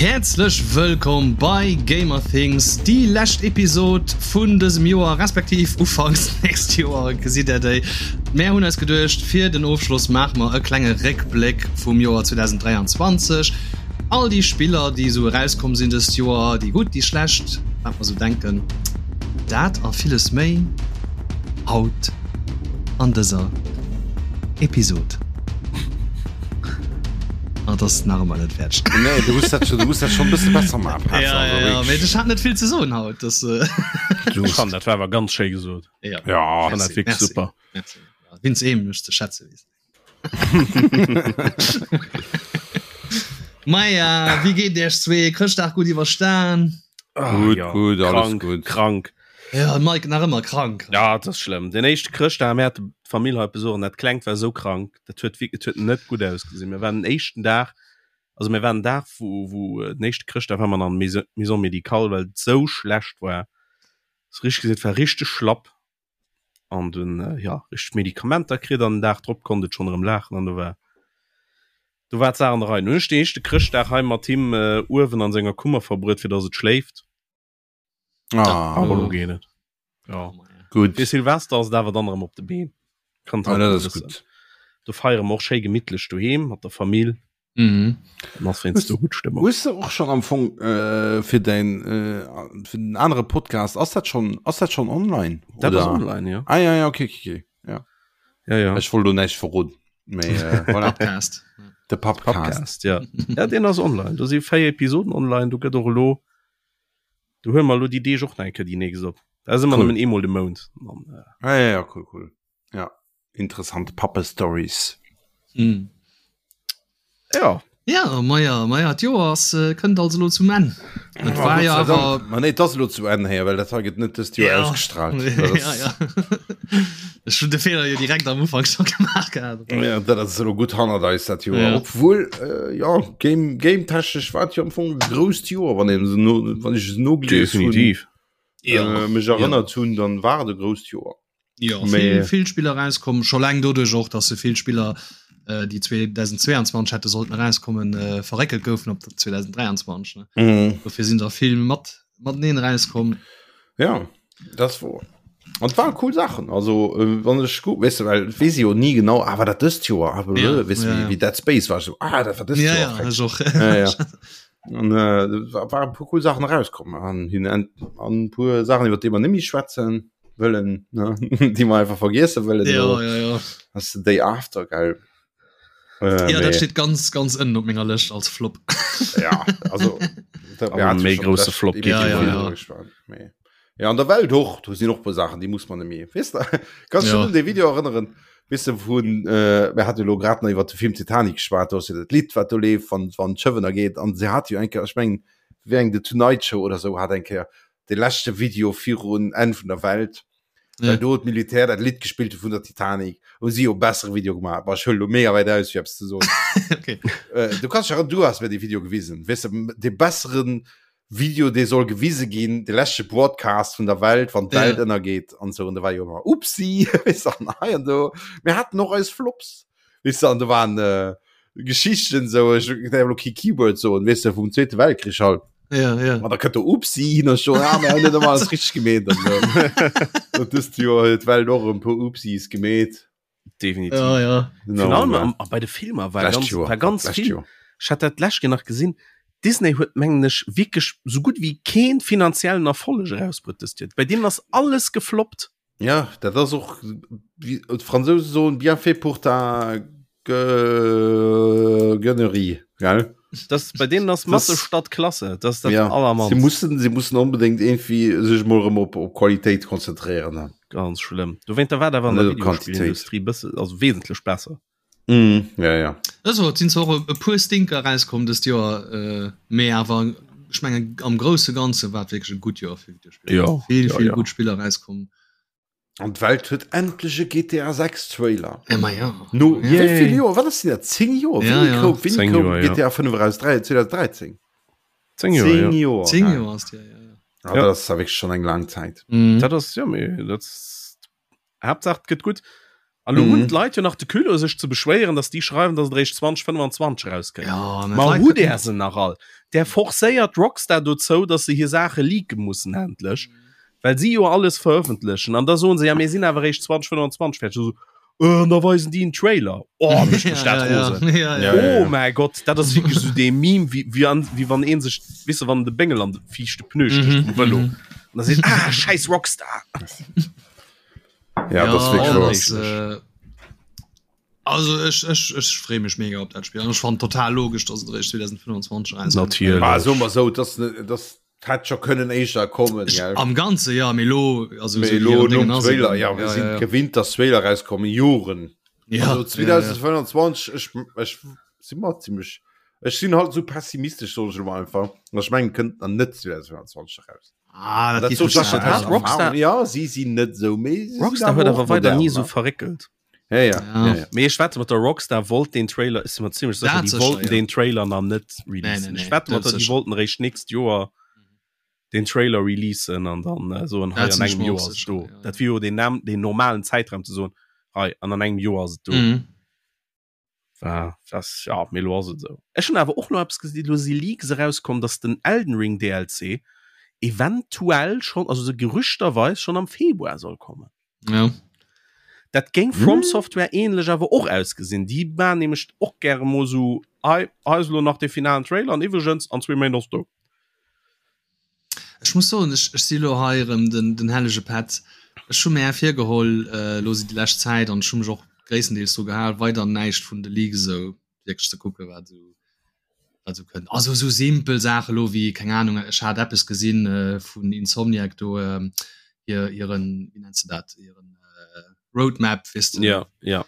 Häerzlech wëllkomm bei Gamerthings, déi lescht Episod vun dësem Joer, respektiv ufanks nächst Joer gesitt der déi. Mär hunn eis geduecht, fir den Ofschloss maache mer e klenge Réckbléck vum Joer 2023. All déi Spiller, déi esou erauskomm sinn dëst Joer, déi gutt, déi schlecht, wat mer esou denken, dat a villes méi haut an dëser Episod. Ah, dat ass nach ëmmer net fäerdeg. Nee, du muss dat, du muss dat schon e bësse besser maachen. Ja, ja, ja, mee ech hat net vill ze soen haut. Das, äh Du Ech fannen, dat war awer ganz schéi gesot. ja. Ja, Fand dat wierklech merci. super. Merci. Ja, Vince eem mech ze schätze weess. Maja, wéi geet Iech zwee? Chrëschtdag gutt iwwerstan? Ah, Gutt, ja. gutt, alles Krank, gutt. krank. Ja, Mike nach ëmmer krank. Ja, dat ass schlëmm. Den éischte Chrëschtdag, mir hate d'Famill hei op Besuch an dat Klengt war esou krank, dat huet wierk, et huet net gutt ausgesinn. Mir waren den éischten Dag, also mir waren den Dag, wou, wou den éischte Chrëschtdag war mer an der Maison médicale, well et esou schlecht war. Ass richteg gesinn, et war richteg schlapp an dunn, ja, richteg Medikamenter kritt an den Dag drop konnt et schonn erëm laachen an do war, do war d'Saach an der Rei. Dunn hunn ech den éischte Chrëschtdag hei mat him uewen an senger Kummer verbruet, fir datt et schléift. Ah, Aber lo geet et. Ja. Gut. Fir Silvester ass et awer dann erëm op de Been. Kann Ah, dat ass bëssen. gut. Do feiere mer och schéi gemittlech doheem mat der Famill. Mhm. Dann ass wéinst do gutt Stëmmung. Hues de och schon am Fong äh, fir dein äh, fir den anere Podcast ass dat schon ass dat schon online? Dat ass oder? online, ja. Ah ja ja okay okay, okay. Ja. Ja, ja. Ech wollt do näischt verroden. Mee äh, voilà. Podcast. De Pappcast. Podcast, ja. Ja, deen ass online. Do si 4 Episoden online. Do gëtt och elo Do huele mer elo déi Deeg och nach eng Kéier déi nächst op. Dat ass ëmmer Cool. nëmmen eemol de Mount. An, äh, Ah, ja, ja, cool, cool. Ja, interessant Pappe-Stories. Mm. ja. Ja, maja, maja, d'Joer ass, äh, kënnt also lo zum Enn. Et war ja awer Ma nee, dat ass elo zu Enn héier, well dat hei gëtt net dëst Joer Ja. ausgestrahlt. Dat ja, ass- ja. Ech hunn de Feeler jo direkt am Ufank scho gemaach gehat. Ja, dat ass elo gutt hannert eis dat Joer. Ja. Obwuel äh, ja, Game, Game technesch war et jo am Fong e grousst Joer, wann een se no, wann ech es nogelies hunn, Definitiv. äh, mech erënnert hunn, dann war et e grousst Joer. Ja, Mee- vill, vill Spiller rauskommen, scho laang doduerch och, dass se vill Spiller, äh, déi 2022 hätte sollten rauskommen, äh, verréckelt goufen op 2023. Ne? Mhm. Dofir sinn der vill mat mateneen rauskomm. Ja, das wor. An et waren cool Sachen. Also äh, wann ech gut weißt du, well wees jo nie genau ah, war dat dëst Joer ah, Ja, weißt du, ja, wie, ja. wie Dead Space war so ah, dat war dëst Ja, Joer ja, frech. ech och. Ja, ja. An äh, war war e puer cool Sachen rauskomm an hin an an puer Sachen iwwer déi mer nemmi schwätzen wëllen ne déi mer einfach vergiessen wëllen Ja, elo. ja, ja. Ass the Day After geil. Äh, Ja, dat mee, steet ganz, ganz ënnen op menger Lëscht als Flop. ja, also dat, Aber méi grousse Flop geet geet Ja, ja, ja. ja. Ja, an der Welt och, do sinn och puer Saachen, déi muss man nemmi. Weess de, kannst du Ja. schon un de Video erënneren, weess de, vun, äh, mir hate lo grad nach iwwer de Film Titanic geschwat, do ass jo dat Lidd, wat do leeft, wann, wann d'Schëff ënnergeet, an se hat jo eng Kéier, ech mengen, wéi eng The Tonight Show oder sou hat eng Kéier de leschte Video virun Enn vun der Welt, Ja. well do d'Militär dat Lidd gespillt hu vun der Titanic, hu si jo bessere Video gemaach. Bah, ech huele lo mega wäit aus, fir eppes ze soen. Okay. Äh, du kannst dich erinnern, du hast mir de Video gewisen, weess de, de besseren Video dee soll gewise ginn, de leschte Broadcast vun der Welt, wann d'Welt Ja. ënnergeet an sou. An da war jo ëmmer Upsi, weess de, an hei an do. Mir haten och eis Flops, weess de, an do waren äh, Geschichten sou, ech däerf elo kee Keyword soen, weess de, vum Zweete Weltkrich halt. Ja, ja. An da kënnt do Upsi hin an schon, ah, mir hunn net ëmmer alles richteg gemeet an sou. Dat dëst Joer huet d'Welt och e puer Upsis gemeet. Definitiv. Ja, ja. Genau, Virun allem ja. am, bei de Filmer war Lescht ganz, Joer. war ganz Lescht vill. Joer. Ech hat dat d'lescht Keer nach gesinn. Disney huet mengen ech wierklech sou gutt wéi keen finanziellen Erfolleg erausbruet dëst Joer. Bei deenen ass alles gefloppt. Ja, dat ass och, wéi d'Fransouse soen, bien fait pour ta Gue- Gueunerie, gell? Das, bei deenen ass Masse statt Klasse. Das ist dat Ja, sie allermannst. mussen, sie mussen unbedingt irgendwie sech mol erëm op, op Qualitéit konzentréieren. Ne? Ganz schlëmm. Dowéinter war dat awer an der Net op Quantitéit. Videospillindustrie bësse, also wesentlech besser. Mm, ja, ja. Also, et sinn zwar och e puer Stinker erauskomm dëst Joer, äh, mee awer ech mengen am grousse Ganze war et wierklech e gutt Joer fir Videospiller. Ja, Vill, ja, vill ja. gutt Spiller erauskomm. An d'Welt huet endlech e GTA 6 Trailer. Ja, ma ja. No ja. wéi vill Joer? Wat ass denn dat? 10 Joer? Ja, Wéini ja. koum, wéini 10 koum Joer, ja. GTA 5 eraus? 2013? 10 Joer, ja. 10 Joer. 10 geil. Joer ass déi, ja, ja. Ah, Ja. Dat ass wierklech schon eng laang Zäit. Mhm. Dat ass, ja, mee dat ass, Haaptsaach et gëtt gutt. An lo hunn d'Leit jo nach de Culot sech ze beschwéieren, datt déi schreiwen, datt et eréischt 2025 erauskënnt. Ja, mä Ma d'Leit hutt Där se nach all? Där forcéiert Rockstar dozou, datt se hir Saache leake mussen endlech, well si jo alles verëffentlechen. An da soen se, ja mir sinn awer eréischt 2025 fäerdeg. Esou, Äh, an da weisen déi en Trailer. Oh, mécht mech dat rosen. Ja, ja, Ja, Oh ja. mäi Gott, dat ass wierklech esou dee Meme, wéi, wéi an, wéi wann ee sech, weess de, wann de Béngel an de viischte Pneu stécht Mhm, vum Vëlo. mhm. An da seet, ah, schäiss Rockstar. Ja, das Ja, wirklich dat wahr. ass, äh, also ech, ech, ech freeë mech mega op dat Spill. An ech fannen total logesch, dass et eréischt 2025 rauskënnt. Natierlech. Ah, so mal so, das, das hätt schon können éischter kommen, Ech, gell? am Ganze ja, mee lo, also Mee esou wéi lo hiren nom Déngen ass Trailer, eben. ja, wir Ja, sind ja, ja. gewinnt, dass Trailer rauskommen, Joren. Ja, Also ja, ja. 2025, ech, ech si mer ziemlech, ech sinn halt so pessimistesch, soll ech elo mal einfach. An ech mengen, kënnt dann net 2025 raus. Ah, dat Dat geet soll mech ech net aus aus. Rockstar- Erfahrung. Ja, si sinn net sou, mee si sinn Rockstar awer huet och awer weider modern, ni sou ne? verréckelt. Ja, ja, Ja. ja, ja. Mee ech wette mat der Rockstar wollt den Trailer, ech si mer zimmlech sécher, Dat déi sécher, wollten ja. den Trailer nach net Nee, releasen. nee, Ech nee, wette mat dat der, déi sécher. wollten eréischt nächst Joer den Trailer releasen an dann äh, soen, hei Dat an sinn ech engem mer Joer och ass et sécher, do. ja. Dat wier jo den, Nam den normalen Zäitraum ze soen, hei an an engem Joer ass et do. Mhm. War das, ja, mee lo ass et esou. Ech hunn awer och nach eppes gesinn, lo si Leaks erauskomm, dass den Elden Ring DLC eventuell schonn, also sou gerüchterweis schonn am Februar soll kommen. Ja. Dat géing From Software ähnlech awer och ausgesinn. Déi maan nämlech och gäre mol sou, hei, hei ass elo nach de finalen Trailer an iwwregens, an zwee Méint ass do. Ech muss soen, ech, ech si lo hei erëm den, den hellege Pätt. Ech hu mär virgeholl, elo si déi lescht Zäit, an ech hu mech och gréisstendeels dru gehal, weider näischt vun de Leaks esou wierklech ze kucken, wat esou, wat esou kënnt. Also esou simpel Saache lo wéi, keng Ahnung, ech hat eppes gesinn vun Insomniac do, hir, hiren, wéi nenns de dat, hiren Roadmap, weess de. Ja, ja.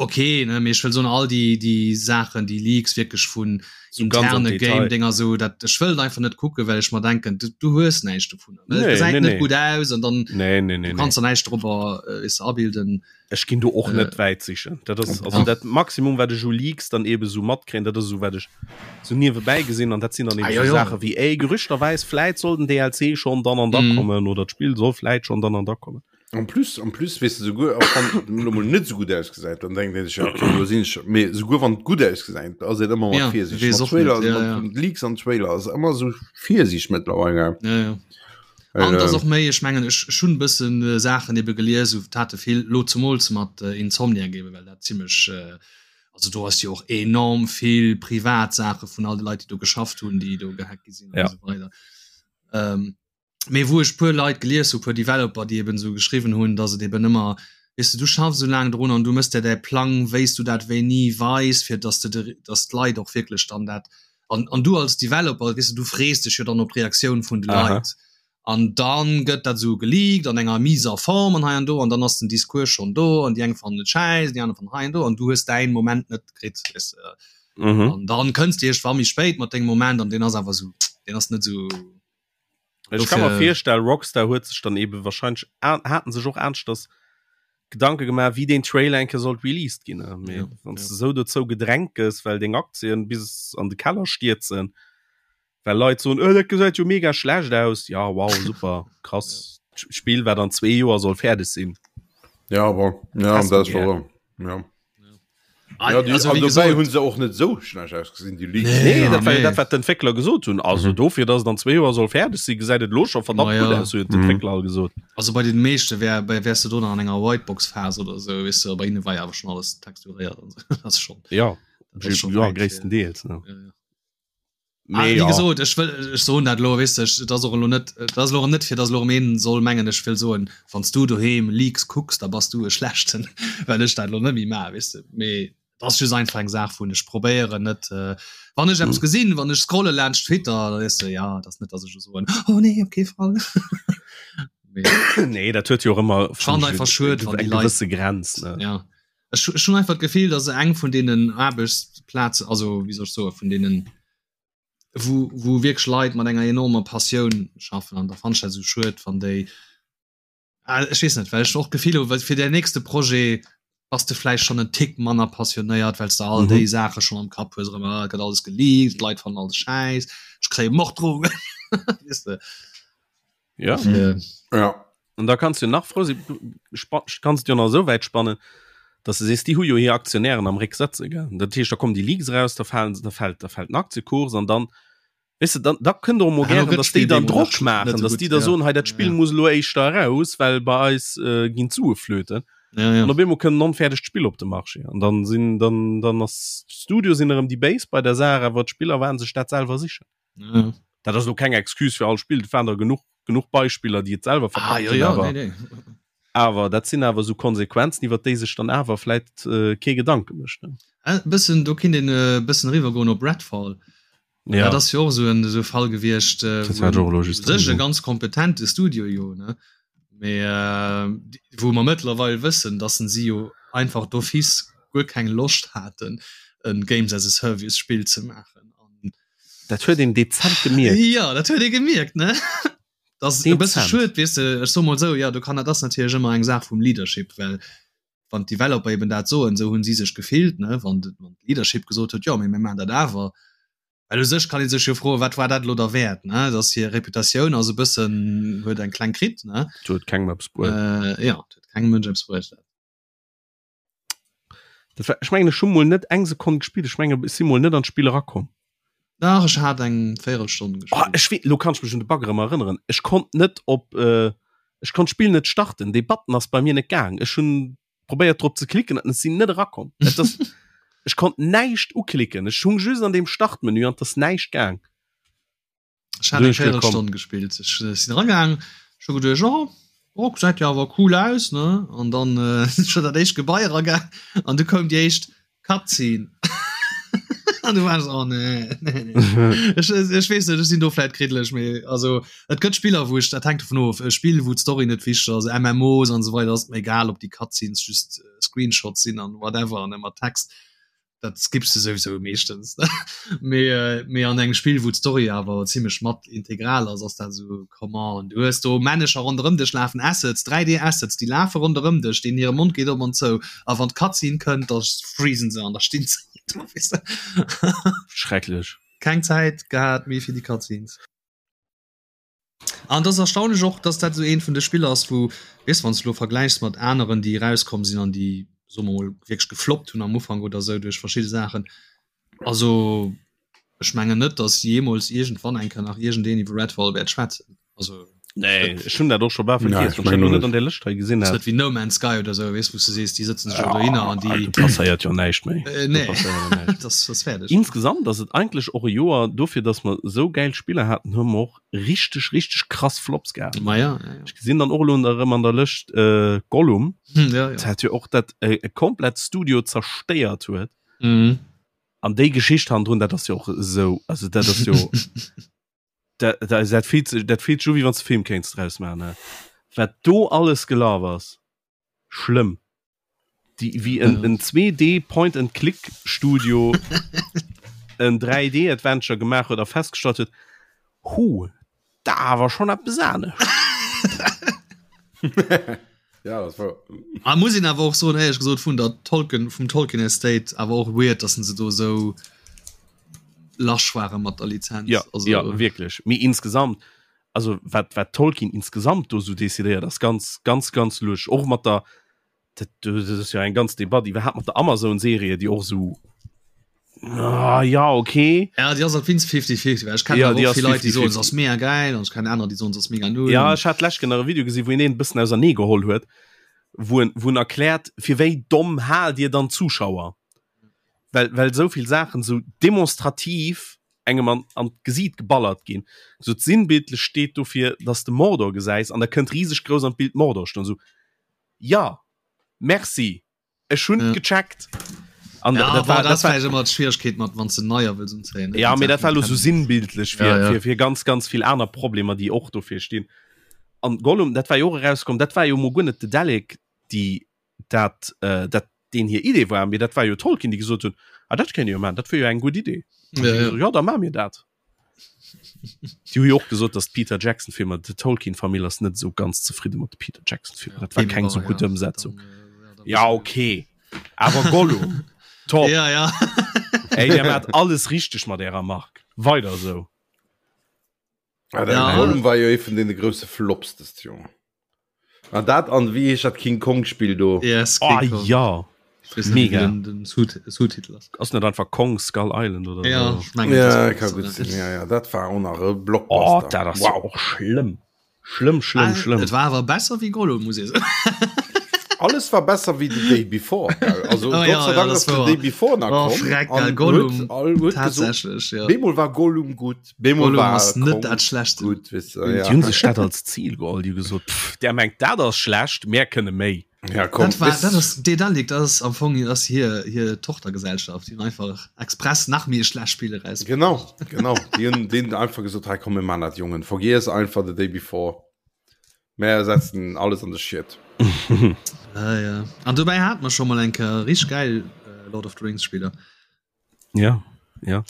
Ok, ne, mee ech wëll soen, all déi, déi Saachen, déi Leaks wierklech vun So ganz am interne Detail. Game-Dinger esou, dat, ech wëll et einfach net kucken, well ech mer denken, du, du hues näischt dovunner. Well et Nee, gesäit nee, net nee. gutt aus an dann Nee, nee, nee, du nee. kanns der näischt drobber, äh, weess de, abilden. Ech ginn do och Äh, net wäit sichen. Dat ass also ja. dat Maximum, wat ech u Leaks dann eben esou matkréien, dat ass esou wat ech sou niewebäi gesinn an dat sinn dann Ah, eben jo, sou jo. Saache wéi, ey, gerüchterweis, vläit soll den DLC schonn dann an da Mhm. kommen oder d'Spill soll vläit schonn dann an da kommen. En plus, en plus weess de souguer, och wann et elo mol net sou gutt ausgesäit, dann denkt een sech, ja, okay, elo sinn ech, mee souguer wann et gutt ausgesäit, ass een ëmmer mat Ja, Virsiicht. weess Mat och net, Trailer, ja, mat ja. Leaks an Trailer ass ëmmer sou Virsiicht mëttlerweil. Ja, ja. Well, An et ass äh, och méi, ech mengen, ech, ech hunn e bëssen äh, Saachen ebe gelies, esou tate vill, lo zemools mat äh, Insomniac ebe, well dat zimmlech, äh, also do ass jo och enorm vill privat Saache vun all de Leit, déi do geschafft hunn, déi do gehackt gi sinn an Ja. esou weider. Ähm, mee wou ech puer Leit gelies hu, puer Developer, déi eben esou geschriwwen hunn, datt et eben ëmmer, weess de, du schaffs esou laang drun an du mëss der däi Plang, wéi s du dat wéini weis, fir datt de de, datt d'Leit och wierklech dann dat, an, an du als Developer, weess de, du frees dech jo dann op d'Reaktioun vun de Leit. An dann gëtt dat esou geleakt an enger miser Form an hei an do an dann ass den Discours schonn do an déi eng fannen et schäiss, déi aner fannen hei an do an du hues däin Moment net kritt, weess de. Mhm. An dann kënns de iergendwann méi spéit mat dengem Moment an deen ass awer esou, deen ass net esou. Ech kann mer virstellen, Rockstar huet sech dann eben wahrscheinlech haten sech och aneschters Gedanke gemaach, wéi deen Trailer eng Kéier sollt released ginn. Mee Ja, wann s ja. de sou dozou gedrängt gëss, well deng Aktien bis an de Keller stierzen, well Leit soen, oh, dat gesäit jo mega schlecht aus. Ja, wow, super, krass. Spill, wat an zwee Joer soll fäerdeg sinn. Ja, bon, ja, Häss dat du ass gär. wahr. Ja. Ah, Ja, die, also, an wéi dobäi gesot, hunn se och net sou schlecht ausgesinn, déi Leaks. Nee, Nee, ja, dat war jo nee. dat, wat d'Entwéckler gesot hunn. Also Mhm. dofir, dass et an zwee Joer soll fäerdeg sinn, gesäit et elo scho verdammt Ma gutt ja. aus, hunn Mhm. d'Entwéckler all gesot. Also bei den meeschte wär, bei wärs du do nach an enger Whitebox-Phas oder sou, weess du, bei hinne war jo awer schon alles texturéiert an sou. Dat ass schon, Ja, dat ass schon ja wäit, gréisstendeels. Ne? ja, ja. Ah, Mee wéi ja. gesot, ech wëll, ech soen dat elo, weess de, ech, et ass och elo net, et ass elo erëm net, fir datt elo erëm een soll mengen, ech wëll soen, wann s du doheem Leaks kucks, da bass du e Schlechten, well ech dat elo net méi maachen, weess de. Mee et ass just einfach eng Saach vun, ech probéieren net, wann ech eppes gesinn, wann ech scrolle laanscht Twitter, da weess de, ja, et ass net, datt ech elo soen, oh nee, op kee Fall. Mee Nee, dat huet jo och ëmmer ech fannen einfach schued, wann déi eng Leit, gewësse Grenz, ne? ja. Ech, ech hunn einfach d'Gefill, dass eng vun deenen Aarbechtsplazen, also wéi soll ech soen, vun deenen, wou, wou wierklech Leit mat enger enormer Passioun schaffen an da fannen ech dat esou schued, wann déi, ah, ech weess net, well ech och d'Gefill hu, well fir däin nächste Projet bass de vläicht schonn en Tick manner passionéiert, well s de all Mhm. déi Saache schonn am Kapp hues, erëm, ah, et gëtt alles geleakt, d'Leit fannen alles schäiss, ech kréie Morddrohungen, weess de. Ja. Dofir. Ja. An da kanns du nach frou sinn, du kannst jo nach esou wäit spannen, Dass de sees, déi hu jo hir Aktionären am Réck sëtze, gell. Dat heescht, da kommen déi Leaks eraus, da falen, da fält, da fält den Aktiekurs an dann, weess de, dann, da kënnt och emol gären, dass déi dann Drock maachen, dass déi da soen, hei dat Spill muss elo éischter eraus, well bei eis ginn d'Sue flöten. An op eemol kënnt en onfäerdegt Spill op de Marché an dann sinn, dann, dann ass d'Studio sinn erëm déi Béis bei der Saach, awer d'Spiller waren sech dat selwer sichen. Ja. Dat ass elo keng Excuse fir all Spill, et waren der genuch, genuch Beispiller, déi et selwer Ah, verkackt ja, hunn, ja, awer, nee, nee. awer dat sinn awer esou Konsequenzen, iwwer déi sech dann awer vläit äh, kee Gedanke mécht. Ne? Äh, bëssen, do kinnt een e bëssen eriwwer goen op Redfall. Ja. Dat ass jo och esou en esou Fall gewiescht, äh, Dat wou hat en och elo u just sech e drun. ganz kompetente Studio jo, ne? Mee äh, wou mer mëttlerweil wëssen, dass en si jo einfach d'office guer keng Loscht haten, en Games as a Service Spill ze maachen. An Dat huet een dezent gemierkt. Ja, dat huet ee gemierkt, ne? Dat ass e bësse schued, weess de, ech soe mol esou, ja, do kann, dat ass natierlech ëmmer eng Saach vum Leadership, well wann d'Developer eben dat soen, esou hunn si sech gefillt, ne, wann d'Leadership gesot huet, jo, mee mir maachen dat awer, well u sech kann ee sech jo froen, wat war dat elo derwäert, ne, dass hir Reputatioun ass e bëssen, huet eng kleng kritt, ne? Dat huet kengem eppes bruet. Jo, dat huet kengem Mënsch eppes bruet. Dat war, ech mengen ech hu mol net eng Sekonn gespillt, ech menge ech si mol net an d'Spill erakomm. Dach ech hat eng Véierelstonn gespillt. Oh, ech wee, lo kann ech mech un de Bug erëm erënneren. Ech konnt net op äh, ech konnt d'Spill net starten, dee Button ass bei mir net gaang. Ech hunn probéiert drop ze klicken an ech sinn net erakomm. Et ass, ech konnt näischt uklicken, ech hung just an deem Startmenü an et ass näischt gaang. Ech hat eng Véierelstonn gespillt. Ech äh, sinn ragaang, ech hu geduecht, oh, oh, gesäit jo awer cool aus, ne? An dann äh, sinn ech an dat éischt Gebai eragaang an du koum déi éischt Cutscene. An du war ech, oh nee, nee, nee. Ech, ech weess net, ech sinn do vläit kriddlech, mee also et gëtt Spiller, wou ech, dat hänkt dovun of, e Spill, wou d'Story net wichteg ass, MMOs an esou weider, ass et mir egal, ob déi Cutscenes just äh, Screenshots sinn an whatever an ëmmer Text. dat skippst du sowieso meeschtens mee äh, mee an engem Spill wou d'Story awer zimmlech mat integral ass ass dat so come on du hues do Männecher ronderëm dech lafen Assets 3D Assets déi lafe ronderëm dech deenen hire Mond geet op an zou a wann d'Cutscene kënnt da freezen se an da stinn se do weess de Schrecklech. Keng Zäit gehat méi fir déi Cutscenes. An et ass erstaunlech och, dass dat esou eent vun de Spiller ass, wou, weess, wann s de elo vergläichs mat aneren, déi erauskomm sinn an déi, soe mer mol, wierklech gefloppt hunn am Ufank oder esou duerch verschidde Saachen. Also ech mengen net, dass jeemools iergendwann eng Kéier nach iergendeen iwwer Redfall wäert schwätzen. Also Nee, ech hunn dat och scho bal vergiess, wann ech dat elo net an där Lëscht hei gesinn hätt. Ass net wéi No Man's Sky oder esou, weess, wou s de sees, déi sëtzen sech elo dohinner an déi. Do passéiert jo näischt méi. Nee, dat ass fäerdeg. Insgesamt ass et eigentlech och e Joer, dofir datt mer esou gäil Spiller haten, hu mer och richteg, richteg krass Flops gehat. Ma ja, ja, ja. Ech gesinn dann och elo erëm an der Lëscht Gollum, ja, ja. dat jo och dat e komplett Studio zerstéiert huet. Mhm. An déi Geschicht hannendrun, dat ass jo och esou, also dat ass jo. Dat, dat, dat fillt sech, dat fillt sech u wéi wann s de Film kéints draus maachen, ne? Wat do alles gelaf ass, schlëmm. Déi, wéi en, en 2D Point and Click Studio en 3D Adventure gemaach huet a festgestallt huet, hu, da awer schonn eppes anescht. Ja, das war. Ah, muss een awer och soen, éierlech gesot, vun der Tolkien, vum Tolkien Estate awer och weird, dass se do esou lasch ware mat der Lizenz. Ja, also, ja wierklech. Mee insgesamt, also wat, wat Tolkien insgesamt do sou decidéiert, ass ganz, ganz, ganz lusch. Och mat der, dat, dat ass jo eng ganz Debatt iwwerhaapt mat der Amazon-Serie, déi och sou Ah, ja okay ja die ass wins 50 50 ich kann ja, die vill Leute die so ass mega geil und keine anderen die sonst ass mega null ja ich hat lech genau Video gesehen wo en bëssen ausernee geholl huet wo en, wo en erkläert fir wéi domm hal dir dann Zuschauer well well soviel Sachen so demonstrativ engem an, an d'Gesiit geballert ginn so sinnbildlech steet dofir dass de Mordor gesäis an da kënnt rieseg grouss an d'Bild Mordor stoen so ja merci Ech hunn ja. gecheckt. An ja, dat war, dat war immer d'Schwierigkeet mat wann ze neier wëlls unzéien. Ja mir dat war lo so sinnbildlech fir, ja, ja. fir, fir ganz ganz vill aner Problemer, déi och dofir stinn. An Gollum dat war jo och erauskomm, dat war jo mo guer net de Dalek, déi dat äh, dat deen hir Idee war, mee dat war jo Tolkien, déi gesot hunn, ah dat kéint jo man, dat wier jo eng gutt Idee. Ja, ja. ja da ma mir dat. Déi hu jo och gesot, datt d'Peter Jackson Filmer, de Tolkien Famill ass net esou ganz zefridde mat de Peter Jackson Filmer. Dat war keng esou gutt Ëmsetzung. Ja okay, awer Gollum, top. Ja, ja. Ey, Dir maacht alles richteg mat Ärer Mark. Weider esou. Ah, den Ja. Gollum war jo ee vun deene grousse Flops dëst Joer. An dat an wéi heescht dat King Kong Spill do? Yes, Oh King Kong. ja. Mega. Den, den Sous-Titel ass. Ass net einfach Kong Skull Island oder ja, so? Ich mein, ja, das kann gut sinn. Ja, ja, dat war och nach e Blockbuster. Oh, dat ass wow. och schlëmm. Schlëmm, schlëmm, ah, schlëmm. Et war awer besser wéi Gollum, muss ich soen. Alles war besser wéi The Day Before. Also oh, Gott ja, sei Dank ja, ass The Day Before nach oh, komm. Freck, geil, Gollum. Huet, tatsächlich, ja. Bemol war Gollum gut. Bemol Gollum war ass net dat schlecht. Gut, weißt du, ja. Die hunn sech dat als Ziel geholl, die gesot, pff, der mengt dat ass schlecht, mär kënne méi. Ja, komm, dat war, dat ass Dedalic, dat ass am Fong ass hier hier Tochtergesellschaft, die hunn einfach express nach méi schlecht Spiele raus. Genau, genau. Die hunn denen einfach gesot, hey, komm, mir man dat Jungen, vergiess einfach the day before. Mär setzen alles an de Schiet. Ah, ja. An dobäi hat mer schon mal eng Kéier richtig geil äh, Lord of the Rings Spieler. Ja, ja.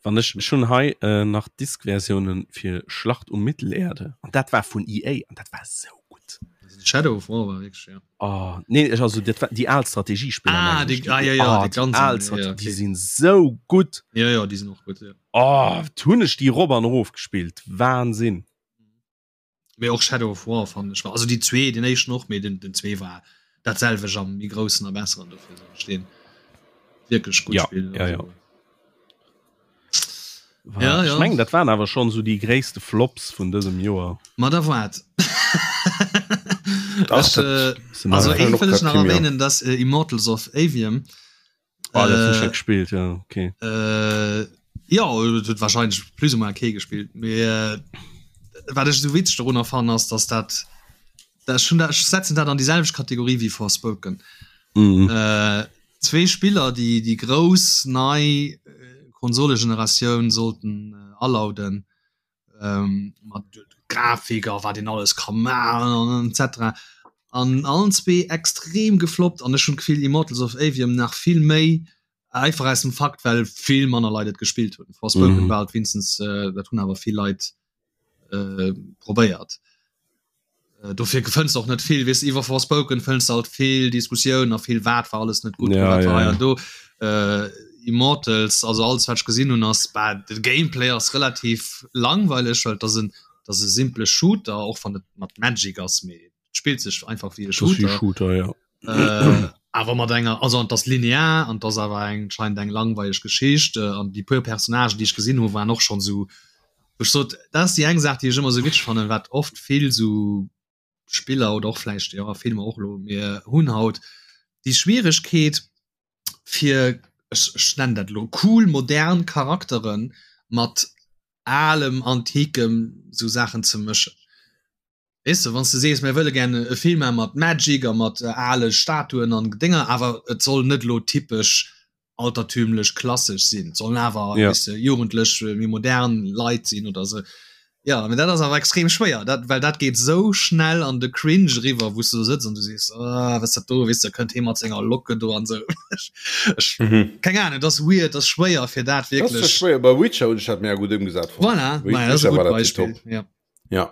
Wann ech schon hei äh, nach Disk-Versionen fir Schlacht um Mittelerde an dat war vun EA an dat war sou gutt. Shadow of War war wirklich, ja. Oh, nee, ech also dat war déi al Strategiespiller. Ah, die, ah, ja, ja, oh, die ganz al Strate ja, okay. die sinn sou gutt. Ja, ja, die sind och gutt, ja. Oh, hunn ech déi rop an erof gespillt. Wahnsinn. Mee och Shadow of War fand ech war also déi zwee den éischten och mee den den zwee war dat selwecht am méi groussen a besseren dofir soll ech deen wierklech gutt ja, spillen ja, ja. War, ja, ja. Ech mengen dat waren awer schon so déi gréisste Flops vun dësem Joer. Ma da waart. Ech, äh, also een wëll ech nach erwähnen, dass äh, Immortals of Avium Ah, dat hunn ech net gespillt, ja, okay. Äh, ja, et huet wahrscheinlech plus ou moins kee gespillt. Mee äh, wat ech esou witzeg dorunner fannen, ass, dass dat, dat ech hunn dat, ech setzen dat an déi selwecht Kategorie wéi Forspoken. Mhm. Äh, zwee Spiller, déi déi grouss nei Konsolegeneratioun sollten äh, alauden, ähm, mat Grafik a wat een alles ka maachen an etc. An allen zwee extrem gefloppt an ech hunn d'Gefill Immortals of Aveum nach vill méi, einfach aus dem Fakt well vill manner Leit et gespillt hunn. Forspoken mhm. war halt winstens äh, dat hunn awer vill Leit äh, probéiert. Äh, dofir fënns och net vill weess iwwer Forspoken fënns halt vill Diskussioun a vill wat war alles net gut ja, ja, ja. do äh, Immortals also alles wat ech gesinn hunn ass bah, de Gameplay ass relativ langweileg well dat en dat e simple Shooter och wann et mat Magic ass mee spillt sech einfach wie e Shooter, Shooter ja. äh, awer mat enger also an das linear an das awer eng scheint eng langweileg Geschicht äh, an die puer Personagen die ich gesinn hu waren och schon so Ech sot, dat ass déi eng Saach, déi ech ëmmer sou witzeg fannen, wat oft vill sou Spiller oder och vläicht, jo, Filmer och elo, mir hunn haut déi Schwieregkeet fir, ech, ech nennen dat elo cool modern Charaktere mat alem, antikem sou Saachen ze mëschen. Weess de, wann s de sees, mir wëlle gär e Film maache mat Magic a mat ale Statuen an Dénger, awer et soll net elo typesch altertümlech klassesch sinn, et sollen awer, Ja. weess de, jugendlech, méi modern Leit sinn oder esou. Jo, mee dat ass awer extrem schwéier, dat, well dat geet esou schnell an de Cringe eriwwer, wou s de do sëtz an du sees, ah, wat ass dat do, weess de, da kënnt hee mat senger Locke do an esou. Ech, ech, keng Ahnung, et ass weird, et ass schwéier fir dat Dat ass wierklech. schwéier. Bei Witcher hunn ech dat mega gutt ëmgesat fonnt. Voilà, maja, dat ass e Witcher war gutt dat Beispill, tiptop. jo. Ja.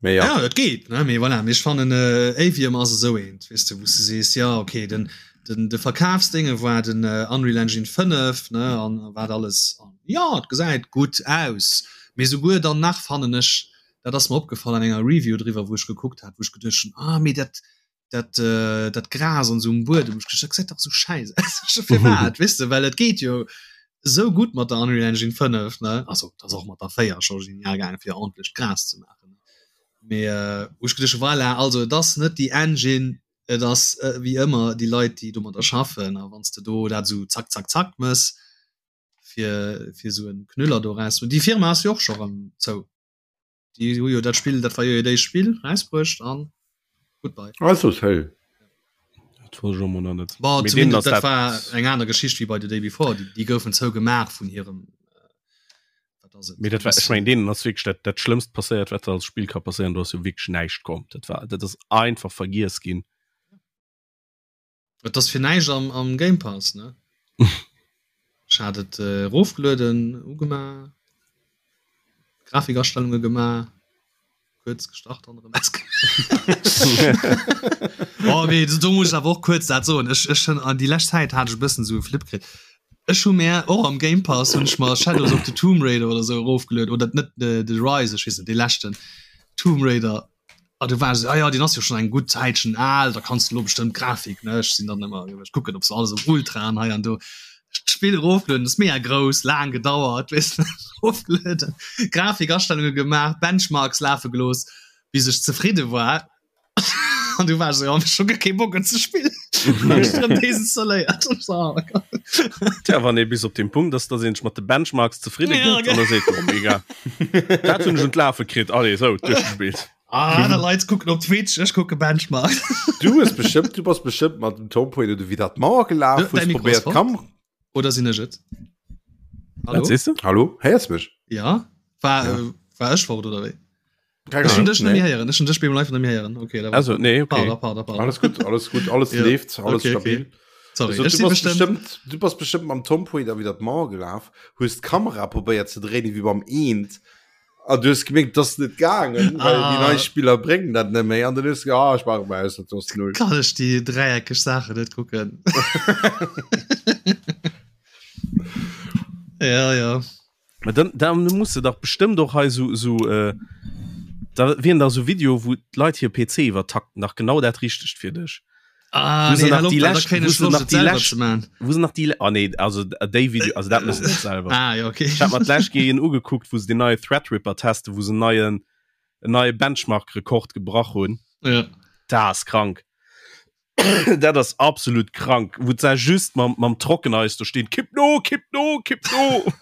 Mee ja. Ja, et geet, ne? Mee voilà, mee ech fannen äh, Avium ass esou eent, weess de, wou s de sees, ja okay, den, den, de Verkafsdénge war den äh, Unreal Engine 5, ne, an wat alles, an ja, et gesäit gutt aus. Mee souguer dann nach fannen ech, dat ass mer opgefall an enger Review driwwer, wou ech gekuckt hat, wou ech geduecht hunn, ah mee dat, dat, äh, dat Gras an esou um Buedem, ech geduecht, dat gesäit dach esou schäiss aus. Firwat, weess de, well et geet jo esou gutt mat der Unreal Engine 5, ne, also et ass och mat der 4 scho genial gaangen, fir ordentlecht Gras ze maachen, mee wou ech geduecht hu, voilà, also et ass net déi Engine, et ass wéi ëmmer déi Leit, déi domadder schaffen, a wann s de do dat esou zack, zack, zack mëss, fir, fir esou en Knüller do eraus, déi Firma ass jo och scho erëm zou. Déi hu jo dat Spill, dat war jo hiert éischt Spill, rausbruecht an goodbye. Also hey. Dat wosst ech och mol nach net. Bon, Mee deenen zumindest ass dat dat war eng aner Geschicht wéi bei The Day Before. Déi, déi goufen zougemaach vun hirem, wat ass et? Mee dat war, ech mengen, deenen ass wierklech dat, dat Schlëmmst passéiert, wat als Spill ka passéieren. Do ass jo wierklech näischt komm. Dat war, dat ass einfach vergiess ginn. Et ass fir näischt am, am Game Pass, ne? Ech hat et äh, erofgelueden, ugemaach, Grafikastellunge gemaach, kuerz gestart an erëm Oh, mee do muss ech awer och kuerz dat soen. Ech, ech hunn an déi lescht Zäit hat ech e bëssen esou e Flip kritt. Ech hu mär och am Game Pass hunn ech mer Shadows of the Tomb Raider oder esou erofgelueden, oder net de, de Rise, ech weess net, dee leschten Tomb Raider. Ah, du war ah, ja, den ass jo schon eng gutt Zäitchen al, da kannst du lo bestëmmt Grafik ne ech sinn dann ëmmer ech kucken ob se alles op Ultra an hei an do. D'Spill erofgelueden, ass mega grouss, laang gedauert weess de erofgelueden, Grafikastellunge gemaach, Benchmarks lafe gelooss, bis ech zefridde war an du war ech esou, oh, ech hu guer kee Bock et ze spillen. Hunn ech erëm desinstalléiert. Ech so, oh Gott. Tja, wann ee bis op dem Punkt ass, dass een sech mat de Benchmarks zefridde Ja, gëtt, an da seet, oh mega, dat hunn ech un d'Lafe kritt, allez, sou, duerchgespillt. Ah, aner Leit kucken op Twitch, ech kucke Benchmark. Du hues bestëmmt, du bass bestëmmt mat dem Tom Poiler du wéi dat Mauer gelaf, hues probéiert Kam. Oder sinn ech et? Hallo? Wat sees du? Hallo, héiers mech? Ja, war, ja. Äh, war ech fort oder wéi? Keine Ech hun dech net méi héieren, ech hun dech beim Live net méi héieren. Okay, da war Also, nee, okay. Pardon, pardon, pardon. Alles gut, alles gut, alles ja. leeft, alles okay, stabil. Okay. Sorry, also, ech du si bass bestimmt bestimmt, du bass bestimmt mam Tom Poiler wéi dat Mauer gelaf, hues d'Kamera probéiert ze dréinen wéi beim Eent. An du hues gemierkt, dass net gaangen, well déi Ah. nei Spiller bréngen dat net méi. An dann hues du ge ah, ech maache mol aus, dat ass null. Kann ech déi dräieckeg Saachen net kucken. Ja, ja. Ma dann, dann muss du dach bestëmmt och hei so, so äh, da wien da so Video, wou d'Leit hir PC iwwertakten, dach genau dat richtegt fir dech. Ah, Wo se nee, nach hal op, die well da lescht- kréien wo ech se Loscht, nach et die selwer lescht- ze man. Wo se nach die, ah nee, also déi Video, also dat müssen net selber. Ah, ja, okay. Ich hab mer d'lescht Kéier een ugekuckt, wou se den neie Threadripper testen, wou se en neien, en neie Benchmark-Rekord gebrach hunn. Ja. Dat ass krank. Dat ass absolut krank, wou se just mam, mam Trockeneis do stinn, kipp no, kipp no, kipp no.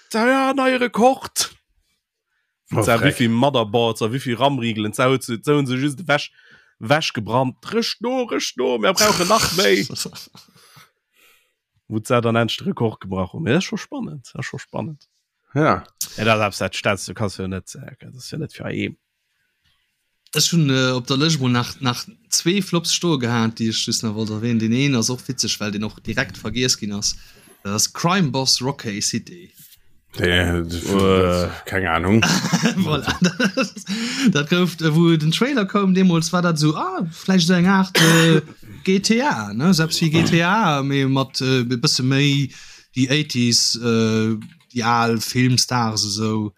Da ja, neie Rekord. Oh, Sa freck. wéivill Motherboards a wéivill RAM-Rigelen sa huet se hunn se just ewech ewech gebrannt. Rëscht no, rëscht no, mir brauchen nach méi. Wou se dann endlech de Rekord gebrach hunn. Mee dat ass scho spannend, dat ass scho spannend. Ja. Ja, dat ass dat stellst du kanns jo net äh, dat ass jo net fir eem. Ech hunn äh, op der Lëscht mol nach, nach zwee Flops stoe gehat, déi ech just nach wollt erwähnen. Deen een ass och witzeg, well deen och direkt vergiess ginn ass. Dat ass Crime Boss Rockay City. Äh, keng Ahnung. Voilà. Dat gouf, äh, wou den Trailer koum deemools, war dat sou, ah, vläicht sou eng Aart äh, GTA, ne? Selbst wéi GTA, mee mat äh, e bësse méi déi 80s, äh, déi al Filmstars esou.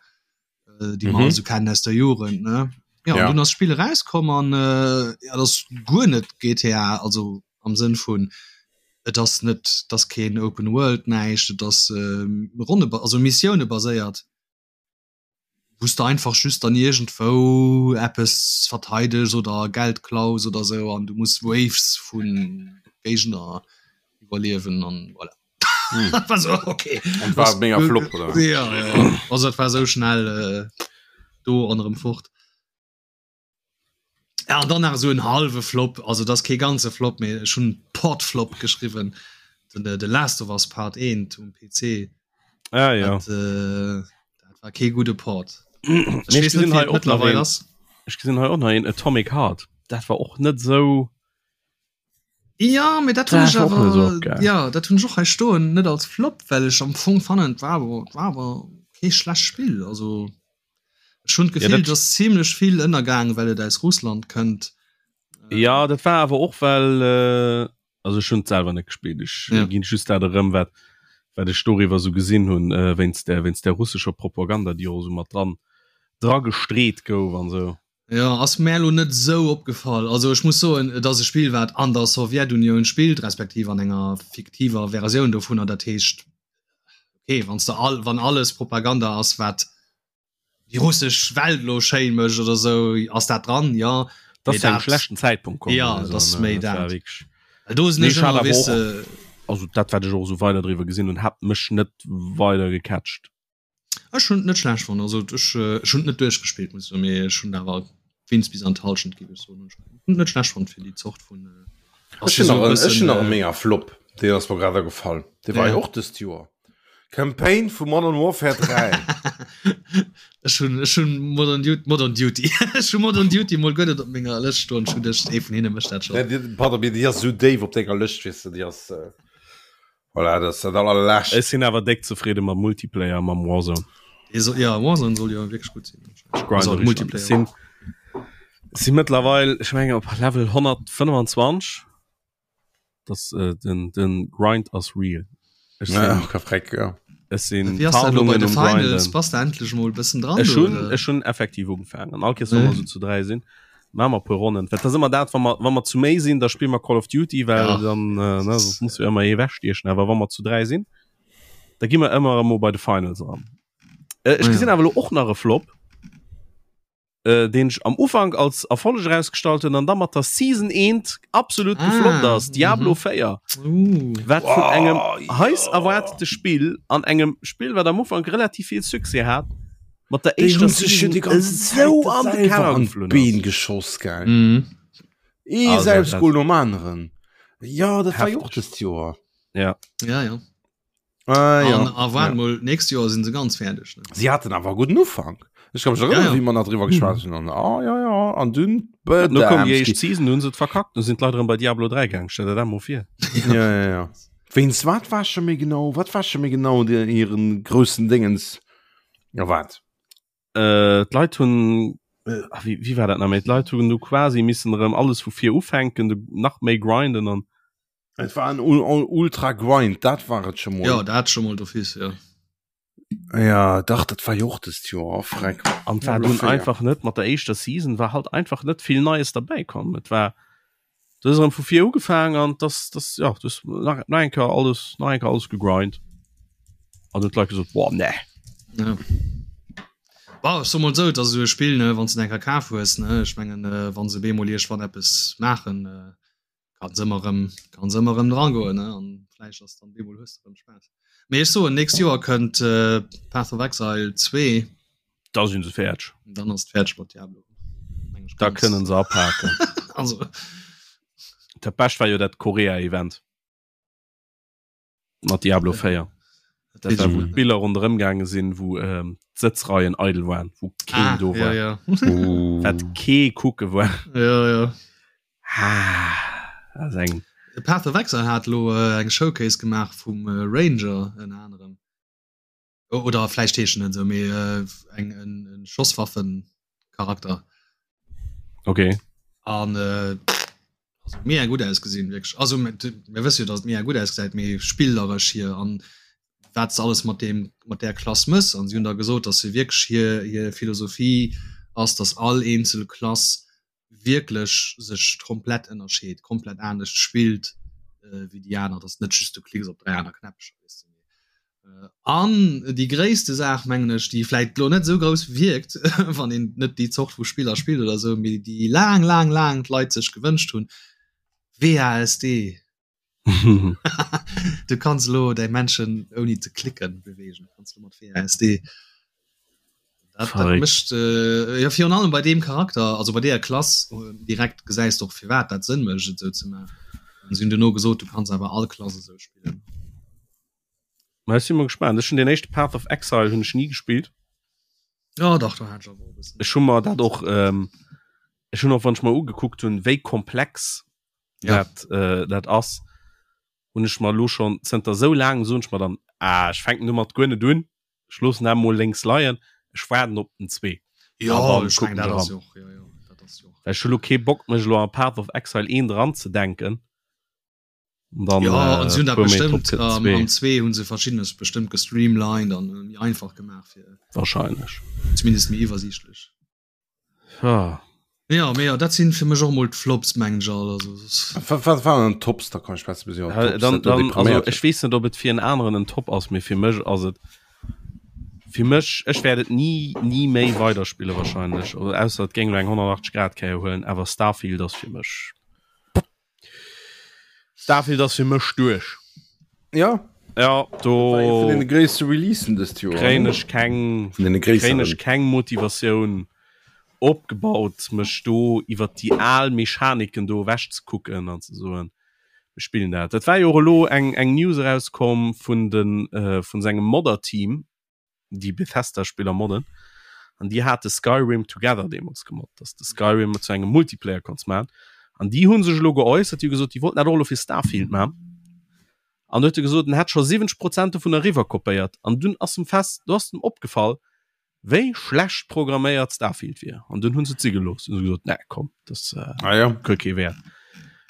äh, déi man mhm. so kennen aus der Jugend ne ja, ja. du das Spiel rauskommen an äh, ja, das guer net GTA also am Sinn vun et das net das keen Open World neicht das äh, Runde also Missioune baséiert wusste einfach just dann irgendwo Apps verteidigt oder Geld klaus oder so an du musst Waves vun Gegner iwwerliewen an voilà. Hm. war so, okay. Und war mega Flop oder? Ja, ja. Also dat war so schnell äh, do an erëm fort. Ja, an dann nach so en halwe Flop, also das kee ganze Flop méi schon Portflop geschriwen den äh, The Last of Us Part 1 um PC. Ah, ja. Dat, äh, dat war kee gute Port. Nee, Ich ich wees net, gesinn wéi hei et och nach mittlerweile een, ass. ech gesinn hei och nach een Atomic Heart. Dat war och net sou Ja, mee dat hunn ech Dat war och net awer esou geil. ja, dat hunn ech och hei stoen, net als Flop, well ech am Fong fannen, et war awer, et war awer kee schlecht Spill. Also ech hunn Ja, d'Gefill, dat et ass zimlech vill ënnergaang, well et aus Russland kënnt. Ja, dat war awer och well äh, also ech hunn et selwer net gespillt, ech Ja. ginn just dat erëm wat wat ech doriwwer sou gesinn hunn äh, wéinst der wéinst der russescher Propaganda, déi och esou mat dran dra gestreet gouf an sou. Jo, ass mär elo net esou opgefall. Also ech muss soen, et ass e Spill wat an der Sowjetunioun spillt, respektiv an enger fiktiver Versioun dovunner. Dat heescht, okay, wanns de all, wann alles Propaganda ass wat déi russesch Welt elo schéin mécht oder esou, ass dat dran, jo. Dat Mee ass zu engem dat, schlechten Zäitpunkt komm jo, oder et sou, ass ne? méi Dat war dat. wierklech. Well do sinn Mee ech ech hat ëmmer, awer weess och, de. also dat wat ech och esou weider driwwer gesinn hunn, hat mech net weider gecatcht. Ech hunn et net schlecht fonnt. Also ech, ech hunn et net duerchgespillt, muss ech soen, mee ech hunn awer wéinst bis an d'Hallschent géif ech soen. Ech hunn et net schlecht fonnt fir déi Zort vun. Ech hunn nach en, ech hunn nach e mega Flop, deen ass mer grad agefall. Dee war jo och dëst Joer. Campaign vu Modern Warfare 3. Ech hunn, ech hunn Modern Duty, Modern Duty, ech hu Modern Duty mol guer net op menger Lëscht stoen. Ech hunn geduecht, ee vun hinne mécht dat schonn. Nee, pardon, mee déi ass esou déif op denger Lëscht, weess de, déi ass. Voilà, dat ass dat allerlescht. Ech sinn awer déck zefridde mam Multiplayer, mam Warzone. Dee soll, ja, Warzone soll jo wierklech gutt sinn. Ech grinden Also richtig an. Multiplayer. Ech sinn, sinn mëttlerweil, ech mengen op Level 125. Das, äh, den, den Grind ass real. Ech Ja, sinn, ka freck, ja. Ech sinn Wéi ass dat elo bei Tarnungen de um Finals? Grinden. Bass de endlech mol e bëssen dran Ech do, hunn oder? ech hunn effektiv ugefaangen. An all Kees wa mer Nee. esou zu 3 sinn, maache mer e puer Ronnen. Well et ass ëmmer dat, wa mer wa mer zu méi sinn, da spille mer Call of Duty, well Ja. dann äh, ne, soss muss jo ëmmer ee wechstiechen. Awer wa mer zu 3 sinn, da gi mer ëmmer emol bei de Finals eran. Äh, ech Ah, ja. gesinn awer elo och nach e Flop. äh, deen ech am Ufank als Erfolleg erausgestallt hunn an da mat der Season 1 absolut ah, gefloppt ass, Diablo mm -hmm. 4. Uh. Wat vun oh, engem ja. heiß erwartete Spiel an engem Spiel, wat am Ufank relativ viel Succès hat, mat der éischter Season die ganze so an de Keller geflunn Been geschoss geil. Mm. Ee also, Selbstgoal nom aneren. Ja, dat war jo och dëst Joer. Ja. Ja, ja. Ah, ja. An, a waart ja. mol, nächst Joer sinn se ganz fäerdeg. Ne? Sie hatten awer guten Ufank. Ech kann mech erinnern, Ja, ja. wéi mer nach driwwer geschwat hunn. An, ah, ja, ja, an dunn Ja, nu koum déi éischt Bedamski. Season, hunn se et verkackt, nu sinn d'Leit erëm bei Diablo 3 gaang. Stell der dat mol vir. Ja, ja, ja. Wéinst wat war scho méi genau? Wat war scho méi genau de, hiren groussen Dingens? Ja, wat? Äh, d'Leit hunn, äh, ah, wéi, wéi war dat nach méi? D'Leit hunn du quasi missen erëm alles vu vir ufänken, du nach méi grinden an Et war en Ultra Grind, dat war et scho mol. Jo, dat scho mol d'office, jo. Ja, dach, dat war jo och dëst Joer, oh freck. An war dunn einfach net mat der éischter Season war halt einfach net vill Neies derbäi komm. Et war du hues erëm vu vir ugefaangen an das das ja du hues nach nach eng Kéier alles nach eng Kéier alles gegrind. An hunn d'Leit gesot, boah nee. Ja. Bon, ech soe mol esou, et ass esou e Spill, ne, wann s de en eng Kéier kaf hues, ne, ech mengen, wa se bemol iergendwann eppes maachen, Kanns ëmmer rëm, kanns ëmmer rëm dran goen, ne? An vläicht ass dann bemol hues de rëm Spaass. Mee ech soen, nächst Joer kënnt äh, Path of Exile 2. Da sinn se fäerdeg. Dann ass et fäerdeg mat Diablo. Meng ech Da ganz. kënnen se apaken. Also, Dat Bescht war jo dat Korea-Event. Mat Diablo 4. Dat war, wou d'Biller ronderëm gaange sinn, wou ähm, d'Sëtzreien eidel waren, wou keen ah, do ja, war. ja. Uh. Wat kee kucke war. ja, ja. Ah, dat ass eng. Path of Exile hat lo äh, eng Showcase gemaach vum äh, Ranger ënner anerem. Oder vläicht heescht en net esou, mee eng en Schosswaffencharakter. Okay. An äh, also mega gutt ausgesinn wierklech. Also mir wësse jo, datt et mega gutt ausgesäit, mee spilleresch hier an wat s alles mat deem mat där Klass mëss. An si hunn da gesot, datt se wierklech hir hir Philosophie ass, datt all eenzel Klass wierklech sech komplett ënnerscheet, komplett anescht spillt wéi déi aner, dass net just du klicks op 3 aner Knäppcher, weess de. An déi gréisste Saach mengen ech, déi vläit lo net esou grouss wierkt, wann een net déi Zort vu Spiller spillt oder esou, mee déi laang, laang, laang d'Leit sech gewënscht hunn, WASD. Du kanns elo däi Männchen ouni ze klicken beweegen, kanns du mat WASD. Dat, dat mécht äh, ja virun allem bei deem Charakter, also bei deeër Klass äh, direkt gesäis du och firwat dat Sënn mécht et esou ze maachen. An si hunn duerno gesot, du kanns awer all Klass esou spillen. Ma ech si mol gespaant. Ech hunn deen éischte Path of Exile hunn ech ni gespillt. Ja dach, do hat ech awer och e bëssen. Ech hu mer dat och ähm, ech hunn och wann ech mer ugekuckt hunn, wéi komplex ja. dat, äh, dat ass hunn ech mer lo schon zënter sou laang soen ech mer dann ah, ech fänken domat guer net un ech loossen dat mol lénks leien ech waarden op den 2 ja, dann ech kucken meng, dat ech ass eran. jo och, ja, ja, dat ass jo och. Well ech hu lo kee Bock mech lo an Path of Exile 1 dran ze denken an dann Ja, an äh, si hunn dat puer Méint drop bestëmmt kënnt den am, 2 am 2 hunn se verschiddenes bestëmmt gestreamlined an méi einfach gemaach fir wahrscheinlech. zumindest méi iwwersiichtlech. Ja. Ja, mee jo, dat sinn fir mech och mol d'Flops, mengen ech all. Also, soss. Wat, wat waren dann d'Tops? Da komm ech besser bis iwwer Ja, d'Tops, dann, dat do dann, also depriméiert ech weess net, ob et fir en aneren en Top ass, mee fir mech ass et fir mech ech wäert et ni ni méi weiderspille wahrscheinlech, oder ausser et géing lo eng 180 Grad Kéier huelen, awer Starfield ass fir mech Starfield ass fir mech duerch. Ja. Ja, do vun den gréisste Releasen dëst Joer. Kréien ech keng vun den kréien ech keng Motivatioun opgebaut, mech do iwwer déi al Mechaniken do ewech ze kucken an ze soen, mir spillen dat. Dat war jo och elo eng eng News erauskomm vun den äh, vun sengem Modder-Team, déi Bethesda-Spiller modden an déi hate Skyrim Together deemools gemoddt, dass de Skyrim zu engem Multiplayer konns man an déi hu sech elo geäussert, déi hu gesot, déi wollten dat och elo fir Starfield man an du huet e gesot, en hätt scho 70 Prozent dovun eriwwer kopéiert an dunn ass em fest, do ass em opgefall, wéi schlecht programméiert Starfield wier an dunn hunn se et si gelooss, hunn se gesot, nee komm, das äh, ah, ja. huet kee Wäert.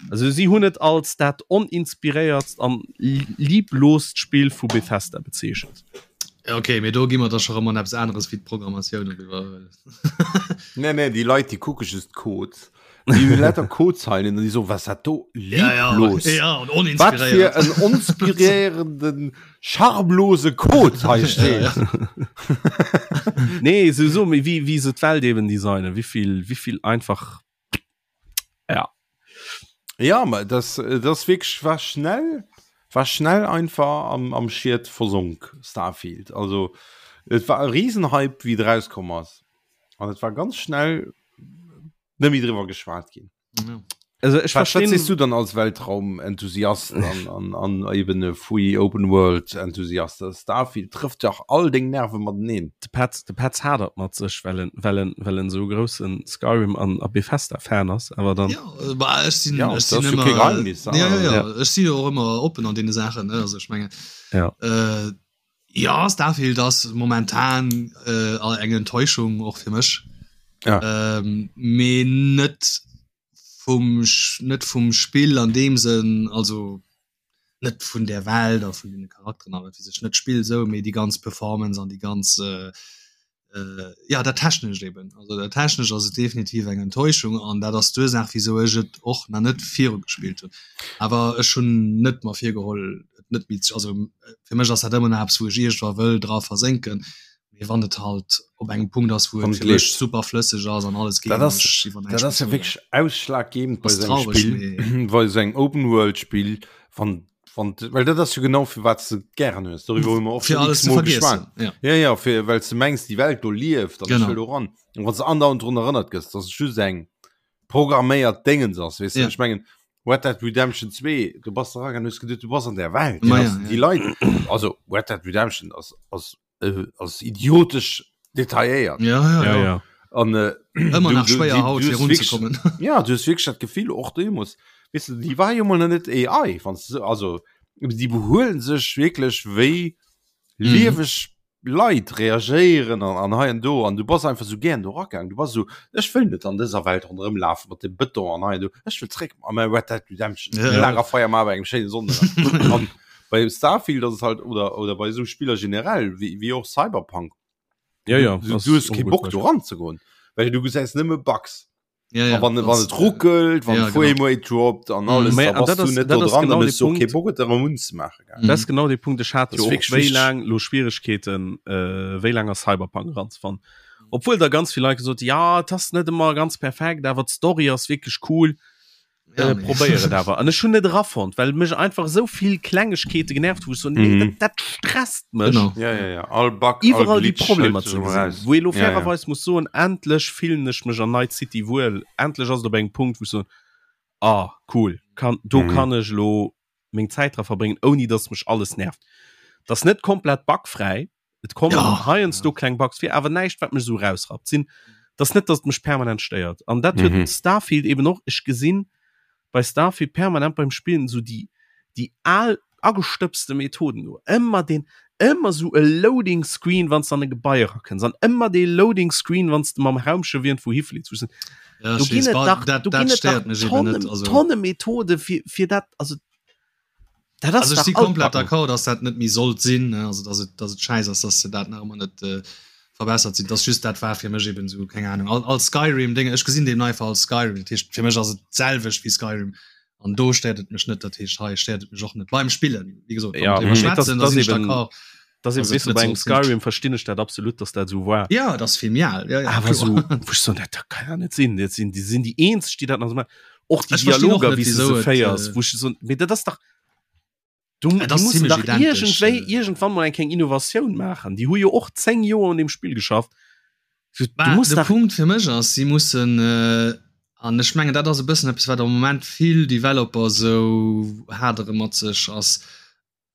Also si hunn et als dat oninspiréiertst an liebloost Spill vu Bethesda bezeechent. Ja, okay, mee do gi mer da scho rëm an eppes aneres wéi d'Programmatioun eriwwer. Nee, nee, déi Leit, déi kucke just d'Code. Déi hunn lauter Codezeilen an déi soen, was dat do Ja, ja, lieblos. ja, an Wat fir oninspiréiert. en onspiréierenden, charmlose Code hei Ja, steet. ja. Nee, sowieso, mee wéi, wéi se d'Welt eben designen, wéivill, wéivill einfach ja. Ja, ma das, das wirklich war schnell, war schnell einfach am, am Schied versonk Starfield. Also et war e Riesenhype, wie et rauskomm ass. An et war ganz schnell net méi driwwer geschwat ginn. Ja. Also ech Was, was verstehen siehst du dann als Weltraumenthusiast an, an, an eben e Free Open World Enthusiast? Starfield trifft ja all deng Nerven mateneen. De Petz, de Petz hadert mat sech, well en, well en, well en sou groussen Skyrim an a Bethesda Fan ass, awer dann. Ja, bah, ech sinn, Ja, ech dat sinn ass jo ëmmer, kee Geheimnis, ja, ja, ja, Ja. ech si jo och ëmmer oppen an deene Saachen, ne, also ech mengen, Ja. äh, ja, Starfield ass momentan äh, eng Enttäuschung och fir mech. Ja. Ähm, mee net vum, net vum Spill an deem Sënn, also net vun der Welt a vun den Charakteren a wat weess ech, net d'Spill esou, mee déi ganz Performance an déi ganz äh, äh, ja dat Technescht eben. Also dat Technescht ass et definitiv eng Enttäuschung an dat ass d'Ursaach wisou ech et och nach net viru gespillt hunn. Awer ech hunn net mer virgeholl et net méi ze, also fir mech ass dat ëmmer nach eppes wou ech iergendwa wëll dra versénken, mee wann et halt op engem Punkt ass wou Wann et et fir mech leeft. super flësseg ass an alles geet Dat an ass, ech iwwer dat näischt ass méi ja froen. wierklech ausschlaggebend bei Ass sou engem traureg, Spill, mee bei sou engem Open-World-Spill, wann, wann, well dat ass jo genau fir wat s de et gären hues. Doriwwer hu mer och fir schon alles ze x-mol vergiessen, geschwat. ja. Ja, ja, fir, well s de mengs, déi Welt do lieft an ech Genau. wëll do ran. An wann s de andauernd drun erënnert gëss, dass et just eng programméiert Déngens ass, weess de? Ja. Ech mengen, Red Dead Redemption 2, du bass eragang an hues geduet, du bass an där Welt. Ma Déi ja, ass, ja. déi Leit, also Red Dead Redemption ass, ass äh, ass idiotesch detailléiert. Ja, ja, Ja, ja. ja. An äh, Ëmmer du, nach du, schwéier die, haut du fir hues wirklich, runzekommen. ja, du hues wirklich dat Gefill och deemools, weißt du, déi war jo mol nach net AI, wann du, also déi behuelen sech wierklech wéi Mhm. lieweg Leit reagéieren an, an hei an do an du bass einfach sou gären do ragaang. Du bass sou, ech wëll net an dëser Welt ronderëm lafen mat dem Bëton an hei an do, ech wëll zréck a mäi Red Dead Redemption, Ja, ja. Lagerfeier maache bei engem schéine Sonnenënnergang. An bei Starfield ass et halt, oder, oder bei esou Spiller generell, wéi, wéi och Cyberpunk, Ja, ja, du, ass du hues och kee e gutt Bock do Beispill. ranzegoen, well du gesäis nëmme Bugs. Ja, ja, A wann, wann das, et ruckelt, wann ja, Frame genau. Rate droppt an alles, Mm, da an bass dat du ass, net dat do ass dran, genau dann de hues du och kee Punkt. Bock et erëm unzemaachen, gell. Mhm. Dat ass genau de Punkt. Ech hat Das jo ist och wirklich wéi wichteg. laang lo Schwieregkeeten, äh, wéi laang a Cyberpunk eranzefannen. Obwuel da ganz vill Leit gesot, ja, et ass net ëmmer ganz perfekt, awer d'Story ass wierklech cool. Ja, Äh, nee. probéier et awer. An ech hunn net erafonnt, well mech einfach esou vill Klengegkeete genervt hu, wou ech so, nee, Mhm. dat, dat stresst mech. Genau. Ja, ja, ja. All Bug, all Iwwerall déi Glitch Problemer hëlt ze sech gesinn. eraus. Wou ee lo Ja, ja. fairerweis muss soen, endlech fillen ech mech an Night City wuel. Endlech ass et op engem Punkt, wou ech soen, ah, cool, kann, do Mhm. kann ech lo meng Zäit dra verbréngen, ouni dass mech alles nervt. Dat ass net komplett bugfräi, et kommen Ja. heiansdo kleng Bugs vir, awer näischt, wat mech esou rausrappt. Sinn, dat ass net, dass et mech permanent stéiert. An dat huet Mhm. Starfield eben och. Ech gesinn bei Starfield permanent beim Spillen esou déi, déi al agestëbste Methoden do. Ëmmer deen, ëmmer esou e Loading Screen, wann s de an e Gebai erakënns, an ëmmer dee Loading Screen, wann s de mam Raumschëff iergendwou hifliits. Wou ech sinn, Ja, do ech ginn weess, et ba, dach, dat, do dat ginn et dach stéiert mech eben Tonne, net. Also, Tonne Methode fir, fir dat, also dat ass also ech dach si komplett altbacken. d'accord, dass dat net méi sollt sinn, ne? Also dass et, dass et schäiss ass, dass se dat nach ëmmer net äh, verbessert sinn. Dass just dat war fir mech eben sou, keng Ahnung, all, all Skyrim-Ding, ech gesinn deem einfach als Skyrim. Dat heescht, fir mech ass et d'selwecht wéi Skyrim. An do stéiert et mech net, dat heescht, hei stéiert et mech och net beim Spillen. Wéi gesot, wann Ja, mer driwwer mee das, schwätzen, da das sinn ech eben, d'accord. das eben, dass et weißt du, net bei engem sollt sinn. Skyrim verstinn ech dat absolut, dass dat sou war. Ja, dat ass vill méi al. Ja, ja, Awer kloer. sou, wou ech soen, dat dat kann ja net sinn. Dat sinn, déi sinn déi eenzeg, déi dat nach sou maachen. Och déi Ech verstinn och Dialoger, net, wéi s de wieso se et, féiers, äh, wou ech soen, mee dat ass dach, du, Et déi ass mussen zimmlech dach identesch, iergendwéi, äh. iergendwann mol eng kleng Innovatioun maachen. Déi hu jo och 10 Joer un deem Spill geschafft. Du, du Bah, muss de dach. Punkt fir mech ass, si mussen, äh, an ech mengen dat ass e bëssen eppes wat am Moment vill Developer sou hadere mat sech, ass,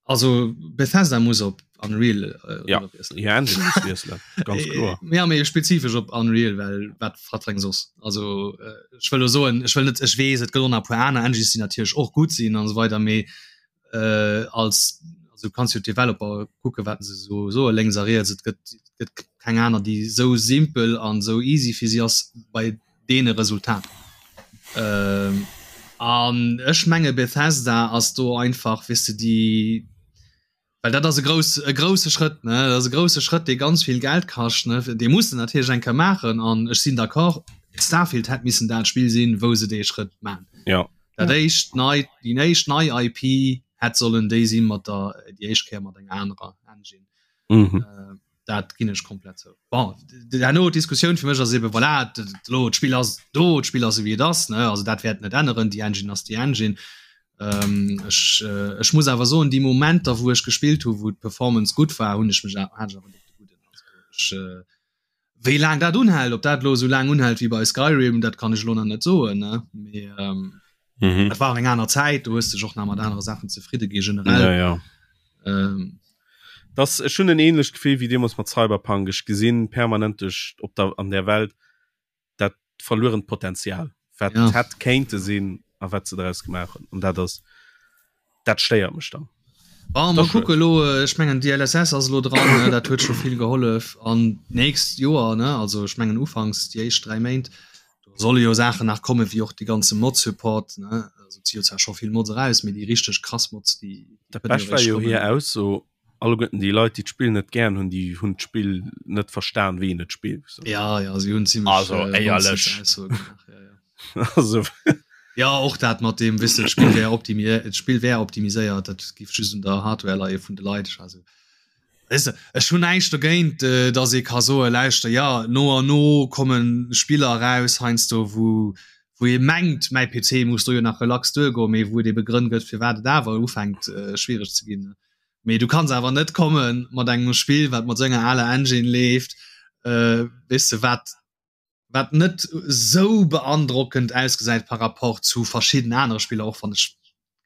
also Bethesda muss op Unreal äh, Ja, iwwerwiesselen. hir Engine muss wiesselen, ganz kloer. Ja, mee spezifesch op Unreal, well wat wat fir eng soss? Also äh, ech wëll lo soen, ech wëll net, ech weess et gëtt och nach e puer aner Engines, déi natierlech och gutt sinn an esou weider, mee äh, als also kanns jo d'Developer kucke wat se so soe lénks a riets, et gëtt gëtt keng aner déi sou simpel an sou easy fir si ass bei deene Resultater. Ähm, an ech menge Bethesda ass do einfach weess de déi. Well dat ass e grouss e grousse Schrëtt ne dat ass e grousse Schrëtt dee ganz vill Geld kascht ne dee muss de natierlech eng Kéier maachen an ech sinn d'accord Starfield hätt missen dat Spill sinn wou se dee Schrëtt man. Ja. Dat éischt nei déi éischt nei IP hätt sollen déi sinn mat der déi éischt Kéier mat enger anerer Engine. Mhm. Äh, dat ginn ech komplett zou. Bon, herno d'Diskussioun fir mech ass eben voilà, elo d'Spill ass do, d'Spill ass esou wéi et ass ne also dat wäert net änneren, déi Engine ass déi Engine. Ähm, ech, äh, ech muss awer soen, déi Momenter wou ech gespillt hu wou d'Performance gutt war, hunn ech mech hat ech awer net de gudden. Also ech, äh, wéi laang dat unhält, ob dat elo esou laang unhält wéi bei Skyrim, dat kann ech elo nach net soen ne mee ähm, Mhm. dat war och eng aner Zäit, do hues dech och nach mat anere Saachen zefridde gi generell. Ja, ja. Ähm, Das ech hunn en ähnlecht Gefill wéi deemools mat Cyberpunk. Ech gesinn permanent duerch op der an der Welt dat verluerent Potenzial, wat Ja. hätt kéinte sinn a wat se draus gemaach hunn. An dat ass dat stéiert mech dann. Bon, Das mal schued. kucke lo, äh, ech mengen DLSS ass lo dran, ne, dat huet scho vill gehollef an nächst Joer ne, also ech mengen ufanks déi éischt 3 Méint do solle jo Saachen nach komme wéi och de ganze Mod-Support ne, also et si jo zwar scho vill Mods eraus, mee déi richteg krass Mods déi déi Dat kënne jo Bescht war eréischt jo kommen. hir Ausso, alleguerten déi Leit, déi d'Spill net gären hunn, déi hunn d'Spill net verstan, wéi een et spillt. Ja, ja, si hunn zimmlech Also, äh, éierlech. Nonsense-Aussoe gemaach, ja, ja. Also, Ja, och dat mat deem, weess de, d'Spill wär optimi d'Spill wär optimiséiert, dat giff just un der Hardware leie vun de Leit. Also, weess de, ech hunn näischt dogéint, äh, datt ee ka soen, lauschter, ja, no an no komme Spiller eraus heiansdo, wou wou ee mengt, mäi PC muss do jo nach relax duergoen, mee wou et ebe Grënn gëtt, firwat et awer ufänkt, äh, schwiereg ze ginn. Mee du kanns awer net komme mat engem Spill, wat mat esou enger aler Engine leeft, äh, weess de, wat wat net esou beandrockend ausgesäit par rapport zu verschidden anere Spiller, och wann ech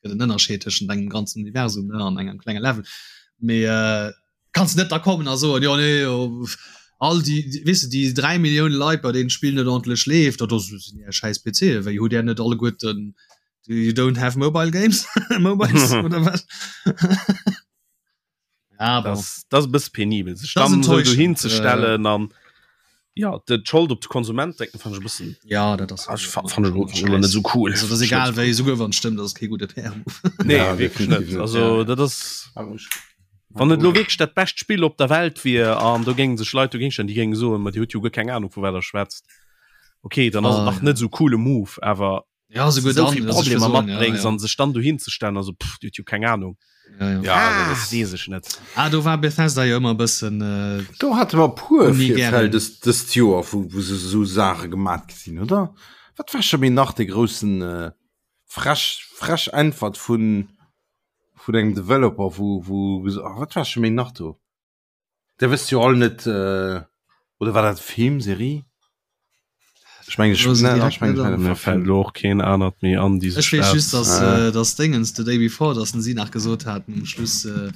gëtt en Ënnerscheed tëschent engem ganzen Universum ne an engem klenge Level. Mee äh, kanns net da kommen a soen, jo nee, jo, all déi, déi weess de, déi 3 Millioune Leit, bei deenen d'Spill net ordentlech leeft, dat ass sinn är schäiss PCe, wéi hutt där net alleguerten You don't have mobile games? Mobiles oder was? ja, bon. Das, das ass e bësse penibel, sech Das dann esou enttäuschend, dohin ze stellen an ja, de d'Schold op de Konsument drécken, fand ech e bëssen Ja, dat ass ah, ech fa- fand ech elo- fand ech elo net esou cool. Also, das egal wéi, souguer wann et stëmmt, das ass kee gudde PR-Move. Nee, Ja, wierklech definitiv net. net. Also Ja. dat ass wann et elo wierklech dat bescht Spill op der Welt wier an do géinge sech Leit dogéint stellen, déi géinge soen, ma Dir hutt jo guer keng Ahnung vu wat der schwätzt. Okay, dann ass et Ah, nach ja. net esou coole Move, awer Ja, souguer so dann, vill also ich Problemer will soen, ja, matbréngs ja. an sech dann dohin ze stellen, also pff, Dir hutt jo keng Ahnung. Ja, ja. Ja, Ah, dat ass- weess ech net. Ah, do war Bethesda jo ëmmer e bëssen äh, Do hate mer puer Ni Virfäll gären. dëst dëst Joer, wou wou se esou Saache gemat gesinn, oder? Wat war scho méi nach de groussen äh, frech frech Äntwert vun vun engem Developer, wou wou ges- ah, wat war scho méi nach do? Der wësst jo all net äh, oder war dat Film, Serie? Ech meng, ech, Lo se ne, direkt ech meng, net ech an. meng, Mir fällt elo och keen anert méi an, déi Ech sech weess dat just, dass, Ah. äh, dass Dingens The Day Before, dass se nach gesot haten um Schluss, äh,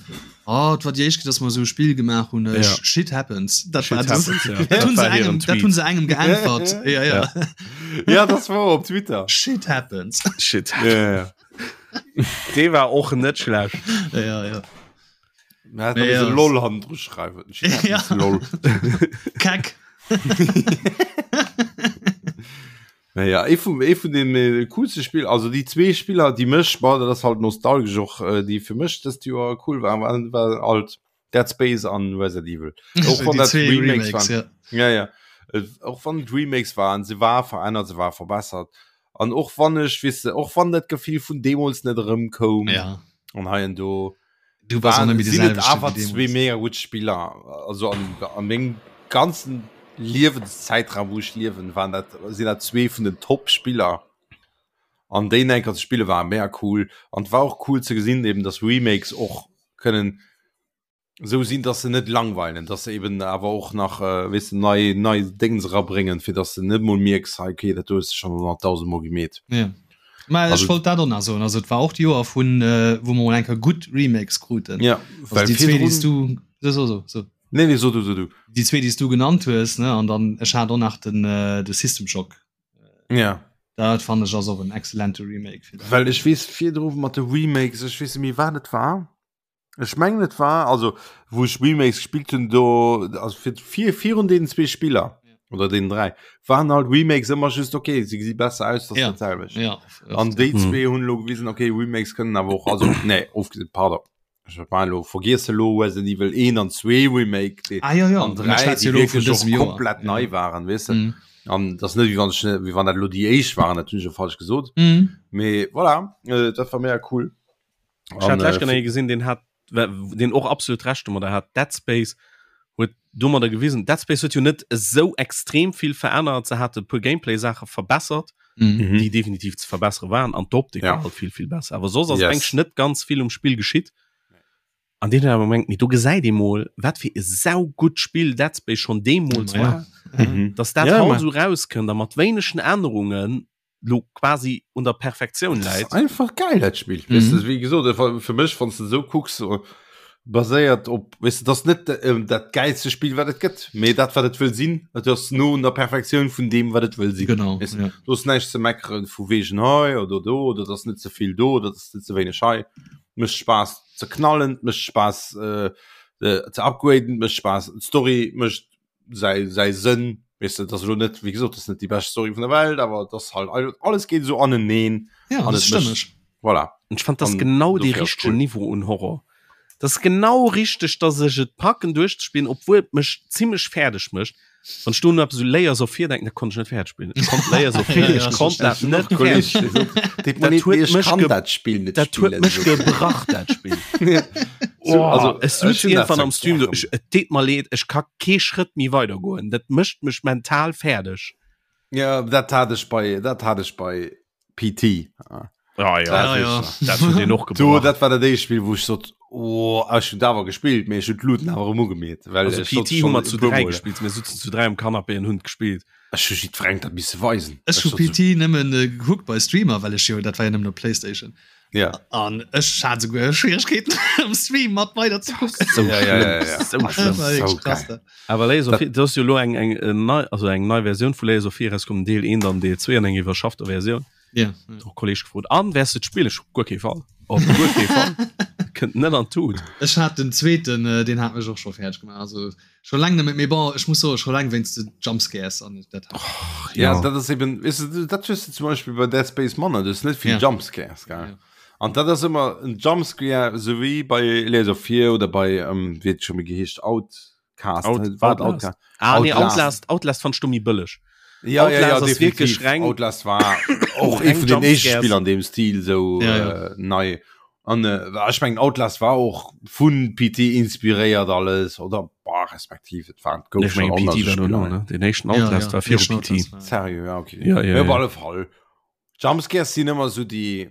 oh, et war déi éischt Kéier, dass mer esou e Spill gemaach hunn, äh, Ja. Shit happens. Dat Shit war das, happens, ja. dat Dat hunn se war hiren engem, dat Tweet. hunn se engem geäntwert. Ja, ja. Ja, das war op Twitter. Shit happens. Shit. Ja, ja, ja. Dee war och net schlecht. Ja, ja. Ja, Nee, ja. LOL han dru schreiwen. Ja. LOL. Kack. Naja, ee vum ee vun den äh, coolste Spiel, also déi zwee Spiller, déi mech, boah, dat ass halt nostalgesch och, äh, déi fir mech dëst Joer cool waren, waren, war halt Dead Space an Resident Evil. Och wann Déi dat zwee Remakes Remakes, waren. ja. Ja, ja. Äh, Och wann et Remakes waren, se war verännert, se war verbessert. An och wann ech, weess de, och wann dat Gefill vun deemools net erëmkoum, Ja. an hei an do, Du bass och net méi de sinn et selwechte awer wéi zwee deemools. mega gutt Spiller. Also an, an mengem ganzen Liewenszäitraum, wou ech liewen, waren dat, sinn dat zwee vun den Top-Spiller. An déi enker ze spille war mega cool. An et war och cool ze gesinn, eben, dass Remakes och kënnen esou sinn, dass se net langweilen, dass se eben awer och nach, äh, weess de, nei, nei Déngens erabréngen, fir dass de net mol mierks, hei, okay, dat do hues de schonn 100.000 Mol gemeet. Ja. Mä ech Also- wollt dat och nach soen. Also et war och d'Joer vun, äh, wou mer mol eng Kéier gutt Remakes kruten. Ja, Also déi zwee, déi s du, so, so, so, so. Nee, nee, so du, so du. Déi zwee, déi s du genannt hues, ne, an dann ech hat och nach den, äh, de System Shock. Ja. Dat fannen ech ass och en excellente Remake fir dat. Well ech weess virdru mat de Remakes, ech weess net méi wat et war. Ech mengen et war, also wou ech Remakes gespillt hunn, do, also fir, fir, virun deenen zwee Spiller oder deenen dräi, waren halt Remakes ëmmer just okay, se gesi besser aus, dat ass Ja. dat selwecht. Ja, An déi Mhm. zwee hunn elo gewisen, okay, Remakes kënnen awer och, also nee, ofgesinn, pardon. Elo vergiesse lo Resident Evil 1 an 2 Remake déi ah, ja, ja. an 3 déi wierklech och komplett nei waren weess de. Mm. An dat ass net wéi wann ech wéi wann dat elo déi éischt waren, dat hunn ech jo falsch gesot. Mm. Mee voilà, äh, dat war mega cool. Ech hat lech genau gesinn, den hat den och absolut recht domadder hat Dead Space huet domadder gewisen Dead Space huet jo net esou extrem vill verännert se hat e puer Gameplay Saache verbessert mhm. déi definitiv ze verbessere waren an d'Optik ja. war halt vill vill besser awer soss ass yes. eigentlich net ganz vill um Spill geschitt an den awer mengt mir do gesäit ee mol wat fir e sau gutt Spill Dead Space schon deemools Ja. war Mhm. dass dat Ja, haut ma- so rauskënnt a mat wéinegen Ännerungen lo quasi un der Perfektioun Das läit ist einfach geil dat Spiel Mhm. weißt du, wie gesot äh, fir mech wann du so kucks äh, baséiert op weißt du, das net äh, dat geilste Spiel wat et gëtt mee dat wat et wëll sinn dat ass no un der Perfektioun vun deem wat et wëll sinn Genau. Weißt Ja. du ass näischt ze meckeren vu wegen hei oder do oder das net zevill do oder das net ze wéineg hei mécht Spaass ze knallen mécht Spaass äh, äh, ze upgraden mécht Spaass d'Story mécht säi säi Sënn weißt du, das lo net wie gesot das net die best Story vun der Welt awer das halt alles geht so aneneen Ja, An das et mécht- stëmmeg. voilà Und ich fand das An genau de dofir ass richtegen cool. Niveau un Horror. Das ist genau richtig, dass ech et packen duerchzespielen, obwohl et mech ziemlech fäerdeg mécht. Wann ech do no eppes u Layers of Fear denken, da konnt ech net fäerdeg spillen. Ech konnt Layers of Fear, Ja, ich ja, konnt das dat net fäerdeg. Dat huet mech kann ge- dat Spiel net Dat huet spillen, mech so. gebrach dat Spiel. So, Oh, also, es sutz ech hunn dat irgendwann zwar am Stream so, gären. ech, et deet mer leed, ech ka kee Schrëtt méi weider goen. Dat mécht mech mental fäerdeg. Ja, dat hat ech bei dat hat ech bei PT. Ah, ja, Dat Ja, ja. ist- dat huet den och Du, gebrach. dat war dat éischt Spiel, wou ech sot, oh, ech hunn awer gespillt, mee ech hunn d'Luten awer erëm ugemeet, well Also ech sot PT hu schon mer zu e puer 3 Mol. gespielt, mir sutzen zu 3 am Canapé an hunn gespielt. Ech hu jiddwerengem dat misse weisen. Ech hu sot so, PT nëmmen äh, gekuckt bei Streamer, well ech jo dat war ja nëmmen op Playstation. Ja. An ech hat souguer Schwierigkeeten am Stream mat weider ze kucken. So Ja, ja, ja, ja. So Das schlimm. war wirklich so krass, geil. da. Awer Layers of Dat- Fear, das ist jo lo eng eng äh, nei also eng nei Versioun vu Layers of Fear rauskomm, Deel 1 an Deel 2 an eng iwwerschaffter Versioun. Ja. Och Kolleg gefrot an wärs du d'Spiel ech guer kee Fall. Op guer kee Fall. Kënnt net an d'Tut. Ech hat den zweeten, äh, den hat mech och scho fäerdeg gemaach. Also scho laang net méi, mee bon, ech muss soen, scho laang wéinst de Jumpscares an dat hat. Ja, dat ass eben, weißt du, dat hues du zum Beispiel bei Dead Space manner, du hues net vill Ja. Jumpscares, gell? Ja. An dat ass ëmmer en Jumpscare, so wéi bei Layers of Fear oder bei, ähm, wéi huet scho méi geheescht, Outcast, Out- war et Outlast. Outcast? Ah nee, Outlast. Outlast, Outlast fand ech do méi bëlleg. Ja, ja, ja, Outlast ass definitiv. wierklech reng- Outlast war och Reng ee vun den éischte Jumpscares. Spiller an deem Stil sou Ja, ja. äh, nei. An äh, ech mengen Outlast war och vun PT inspiréiert alles oder boah, respektiv et war gouf Ech mengen schon PT war anders dono, ne? Den éischten Outlast ja, war viru éischten PT. Outlast war- Serio, ja, okay. Ja, ja, ja, op ja. alle Fall. Jumpscares sinn ëmmer sou déi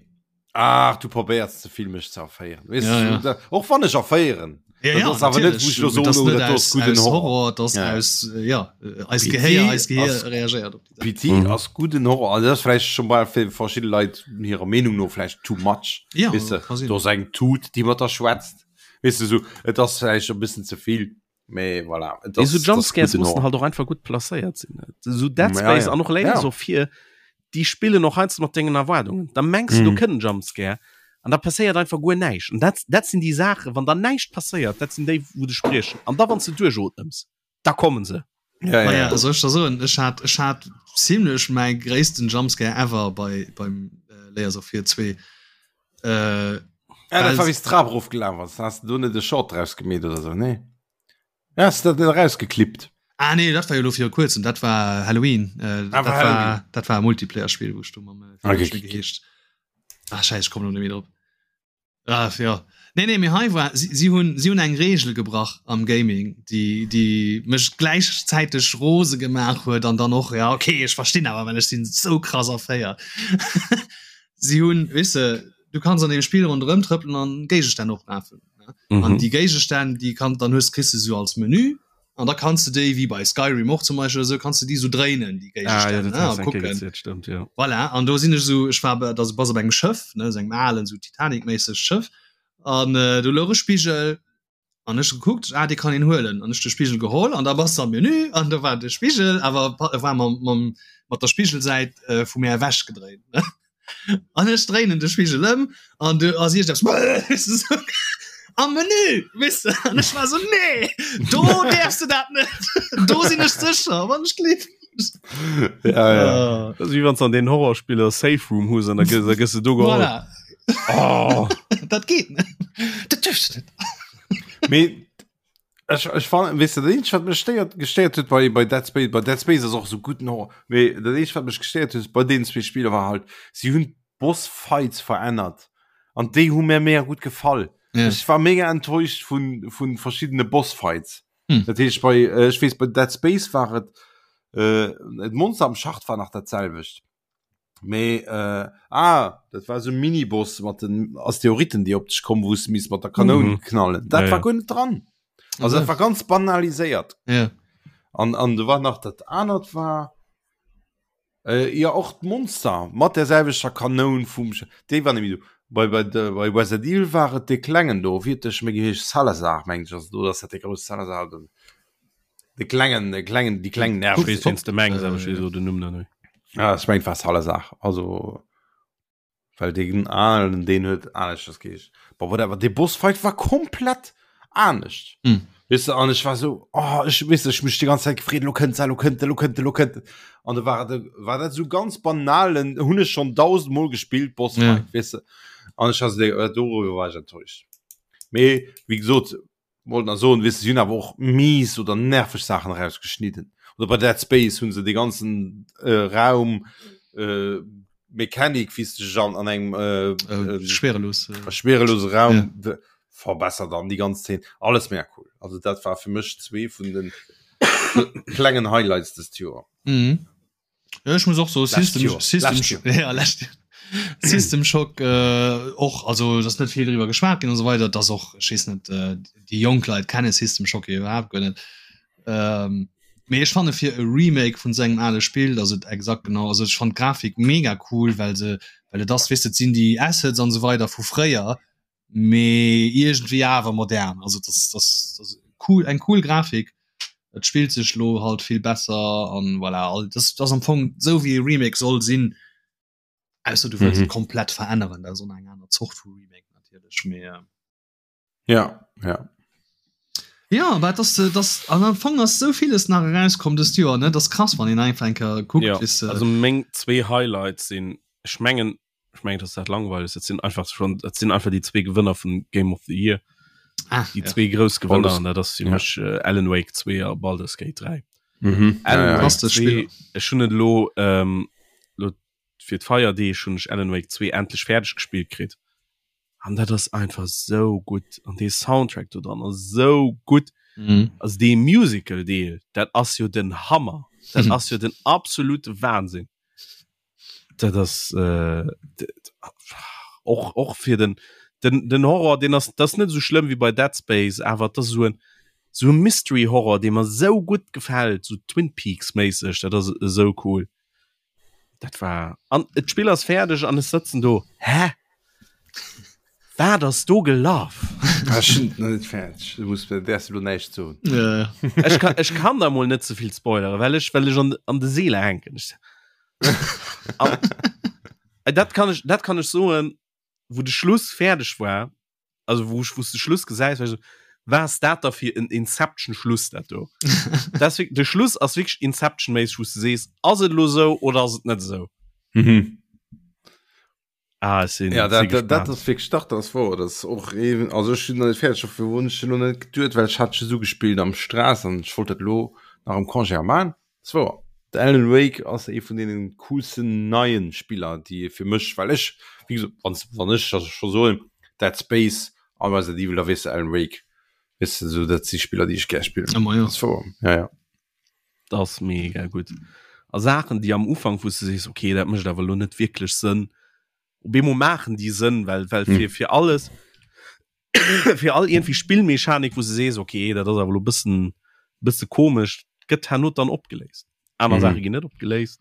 ach du probéiers ze vill mech ze erféieren. Weess Ja, du, ja. da, och wann ech erféieren. Ja, Dat ja, ass awer net, wou ech lo natürlich. soen, Das oh, net dat ass aus, gudden aus Horror. Horror, das Ja. aus, äh, ja, äh, eis PT Gehéier, eis Gehéier ass- reagéiert op déi Saach. PT Mhm. ass gudden Horror. Also das ass vläicht schon bei fir verschidde Leit hirer Meenung no vläicht too much. Ja, Weess de, kann sinn. do ass eng Tut, déi mat der schwätzt. Weess de, so, et ass vläicht e bëssen ze vill. Mee voilà. Et Mee ass, so et ass Jumpscares gudden mussen Horror. halt och einfach gutt placéiert sinn. So Dead Ja, Space ja. an och Layers Ja. of Fear, déi spillen och heiansdo mat dengen Erwaardungen. Da mengs du, do Mhm. kënnt en Jumpscare an da passéiert einfach guer näischt. An dat, dat sinn déi Saachen, wann da näischt passéiert, dat sinn déi, wou dech spriechen. An da wann s de duerchootmems, da kommen se. Ja, ja, Naja, ja. soll ech der soen, ech hat, ech hat ziemlech mäi gréissten Jumpscare ever bei, beim äh, Layers of Fear 2. Äh, Ja, dat Well- war wéi s d'Trap erofgelaf ass. Has de do net e Short draus gemeet oder sou, nee? Ja, has de dat net erausgeklippt? Ah nee, dat war jo lo viru kuerzem, dat war Halloween. Äh, Ah, dat, war war, Halloween. dat war e Multiplayer-Spiel, wou ech do mam äh, Okay. okay. geheescht. Ah, scheiße, ich komm lo net méi drop. Ah, ja. Nee, nee, mee hei war, si, si hunn, si hunn eng Regel gebrach am Gaming, déi, déi mech gläichzäiteg rose gemaach huet an dann och, ja, okay, ech verstinn awer, well ech sinn sou krass erféiert. Si hunn, weess de, du kanns an deem Spill ronderëm trëppelen an Géigestänn oprafen. Ne? Mhm. An déi Géigestänn, déi kann, dann hues, kriss de sou als Menü an da kanns du déi, wéi bei Skyrim och zum Beispill oder sou, kanns du déi sou dréinen, déi Ah, ja, Géigestänn, dat ne, hast a du eng Kéier kucken. gezielt, stimmt, ja. Voilà, an do sinn ech sou, ech war bei, da bass op engem Schëff, ne, sou engem alen, sou Titanic-méisseg Schëff, an äh, do louch e Spigel, an ech gekuckt, ah, dee kann een huelen, an ech de Spigel geholl, an da bass de am Menü, an do war de Spigel, awer war mam, mam, mat der Spigelsäit äh, vu mär ewech gedréint, ne. An ech dréinen de Spigel ëm, an du ass iergendeppes, am Menü, weess de, an ech war sou, nee, do däerfs de dat net, do sinn ech sécher, wann ech gleef. Ja, ja. Ah. Dat ass wéi wann s an den Horrorspiller Safe Room hues an da gëss, da gëss de do geholl. Voilà. Oh. dat geet net. Dat duerfst du net. Mee ech, ech fan, weess du, dat eenzegt, wat mech stéiert, gestéiert huet bei, bei Dead Space, bei Dead Space ass och sou guten Horror, mee dat eenzegt, wat mech gestéiert huet bei deenen zwee Spiller war halt, si hunn d'Boss-Fights verännert an déi hu mir mega gutt gefall. Ja. Ech war mega enttäuscht vun, vun verschiddene Boss-Fights. Hm. Dat heescht bei, äh, ech weess, bei Dead Space war et, äh, d'Monster am Schacht war nach dat selwecht. Mee äh, ah, dat war so Miniboss mat den Asteroiden, déi op dech kommen, wou s de misst mat der Kanoun mhm. knallen. Dat ja, war guer net dran. Also dat war ganz banaliséiert. Ja. An, an du war nach dat anert war äh, ja och d'Monster mat der selwechter Kanoun vum déi war nämlich du. Bei, bei, de, bei Resident Evil war et de klengen do, wéi huet de méi geheescht Salazar meng ech, also do ass dat de grousse Salazar den. De klengen de klengen déi kleng Nerv. Weess wéinst de mengs, awer ech weess elo den Numm net méi. Ah, ech mengt war Salazar, also well deen alen deen huet aneschters geheescht. Bon whatever, dee Bossfight war komplett anescht. Hm. Weess de, an ech war sou, oh ech weess ech mech déi ganz Zäit gefreet, elo kënnt se, elo kënnt elo kënnt elo kënnt an da war et war dat sou ganz banalen, hunn ech schonn dausendmol gespillt Bossfight, Ja. weess de. An ech war sou, dee doriwwer war ech enttäuscht. Mee wéi gesot, Wollt nach soen, weess de, si hunn awer och mies oder nerveg Saachen erausgeschnidden. Oder bei Dead Space hunn se dee ganzen äh, Raum äh, Mechanik, wéi s de dech an, an engem äh, Äh, äh, schwerelos. Äh, schwerelose Raum ja. verbessert an déi ganz Szene. Alles mega cool. Also dat war fir mech zwee vun den klengen Highlights dëst Joer. Mhm. Ja, ech muss och so Lescht System, Joer. System, Lescht Joer. ja, lescht Joer. System Shock äh, och also das net viel drüber geschwat ginn und so weiter das och ech weess net äh, déi jonk Leit kenne System Shock jo iwwerhaapt guer net ähm, mee ech fanne fir e Remake vun sengem ale Spill dat et exakt genau also ech fand d'Grafik mega cool well se well et ass weess de et sinn déi Assets an so weider vu fréier mee iergendwéi awer modern also das das das cool eng cool Grafik et spillt sech lo halt vill besser an voilà all das das am Fong sou wéi e Remake soll sinn ausser du wëlls Mhm. et komplett veränneren dat ass och nach eng aner Zort vu Remake natierlech mee äh, Ja, ja. ja aber das äh, das an am Fong ass sou villes nach erauskomm dëst Joer ne das krass wann een einfach eng Kéier kuckt Ja, weess de. also meng zwee Highlights sinn ech mengen ech mengen dass dat langweileg dat sinn einfach schon dat sinn einfach déi zwee Gewënner vun Game of the Year ah, déi ja. zwee grouss Gewënner Baldur's- an dat ass fir ja. mech äh, Alan Wake 2 a Baldur's Gate 3 Mhm. Alan Ja, ja. Wake Fantastesch 2 Spiller. ech hunn et elo ähm, lo fir d'Feierdeeg hunn ech Alan Wake 2 endlech fäerdeg gespillt kritt an dat ass einfach sou gutt an dee Soundtrack do dran ass sou gutt Mhm. also dee Musical Deel dat ass jo den Hammer dat Mhm. ass jo den absolute Wahnsinn Dat ass äh, och och fir den den den Horror den ass das net so schlimm wie bei Dead Space awer das so en so e Mystery Horror dee mer sou gutt gefält so Twin Peaks méisseg dat ass esou cool dat war an et Spill ass fäerdeg an ech sëtzen do hä Wat ass do gelaf? Ech hunn et nach net fäerdeg, du muss mir däerfs elo näischt soen. Ja. Ech kann, ech kann da mol net ze vill spoileren, well ech, well ech an, an de Seele hänken. Ech, an, äh, dat kann ech, dat kann ech soen, wou de Schluss fäerdeg war, also wou ech, wou s de Schluss gesäis, war ech so, wat ass dat da fir en Inception-Schluss dat do? Dat ass wirk- de Schluss ass wierklech Inception-méisseg, wou s de sees, ass et elo sou oder ass et net esou? Mhm. Ah, ech sinn Ja, si dat, dat, dat gespaant. ass wierklech dach, dat ass wouer. Dat ass och eben, also ech sinn nach net fäerdeg, dofir hunn ech elo net geduet, well ech hat just ugespillt am Stress an ech wollt dat elo nach am Congé a man. Dat ass wouer. De Alan Wake ass ee vun deenen coolsten neien Spiller, déi fir mech, well ech, wéi gesot, wann, wann ech also scho soen, Dead Space a Resident Evil, da weess de Alan Wake, weess de, esou dat si Spiller, déi ech gär spillen. Ëmmer, jo. Dat ass wouer, ja, ja. Dat ass mega gutt. A Saachen, déi am Ufank, wou s de sees, okay, dat mécht awer elo net wierklech Sënn, op eemol maachen déi Sënn, well, well fir, fir alles, fir all iergendwéi Spillmechanik, wou s de sees, okay, dat ass awer elo e bëssen, bësse komesch, gëtt herno dann opgeléist. Aner Mhm. Saache ginn net opgeléist,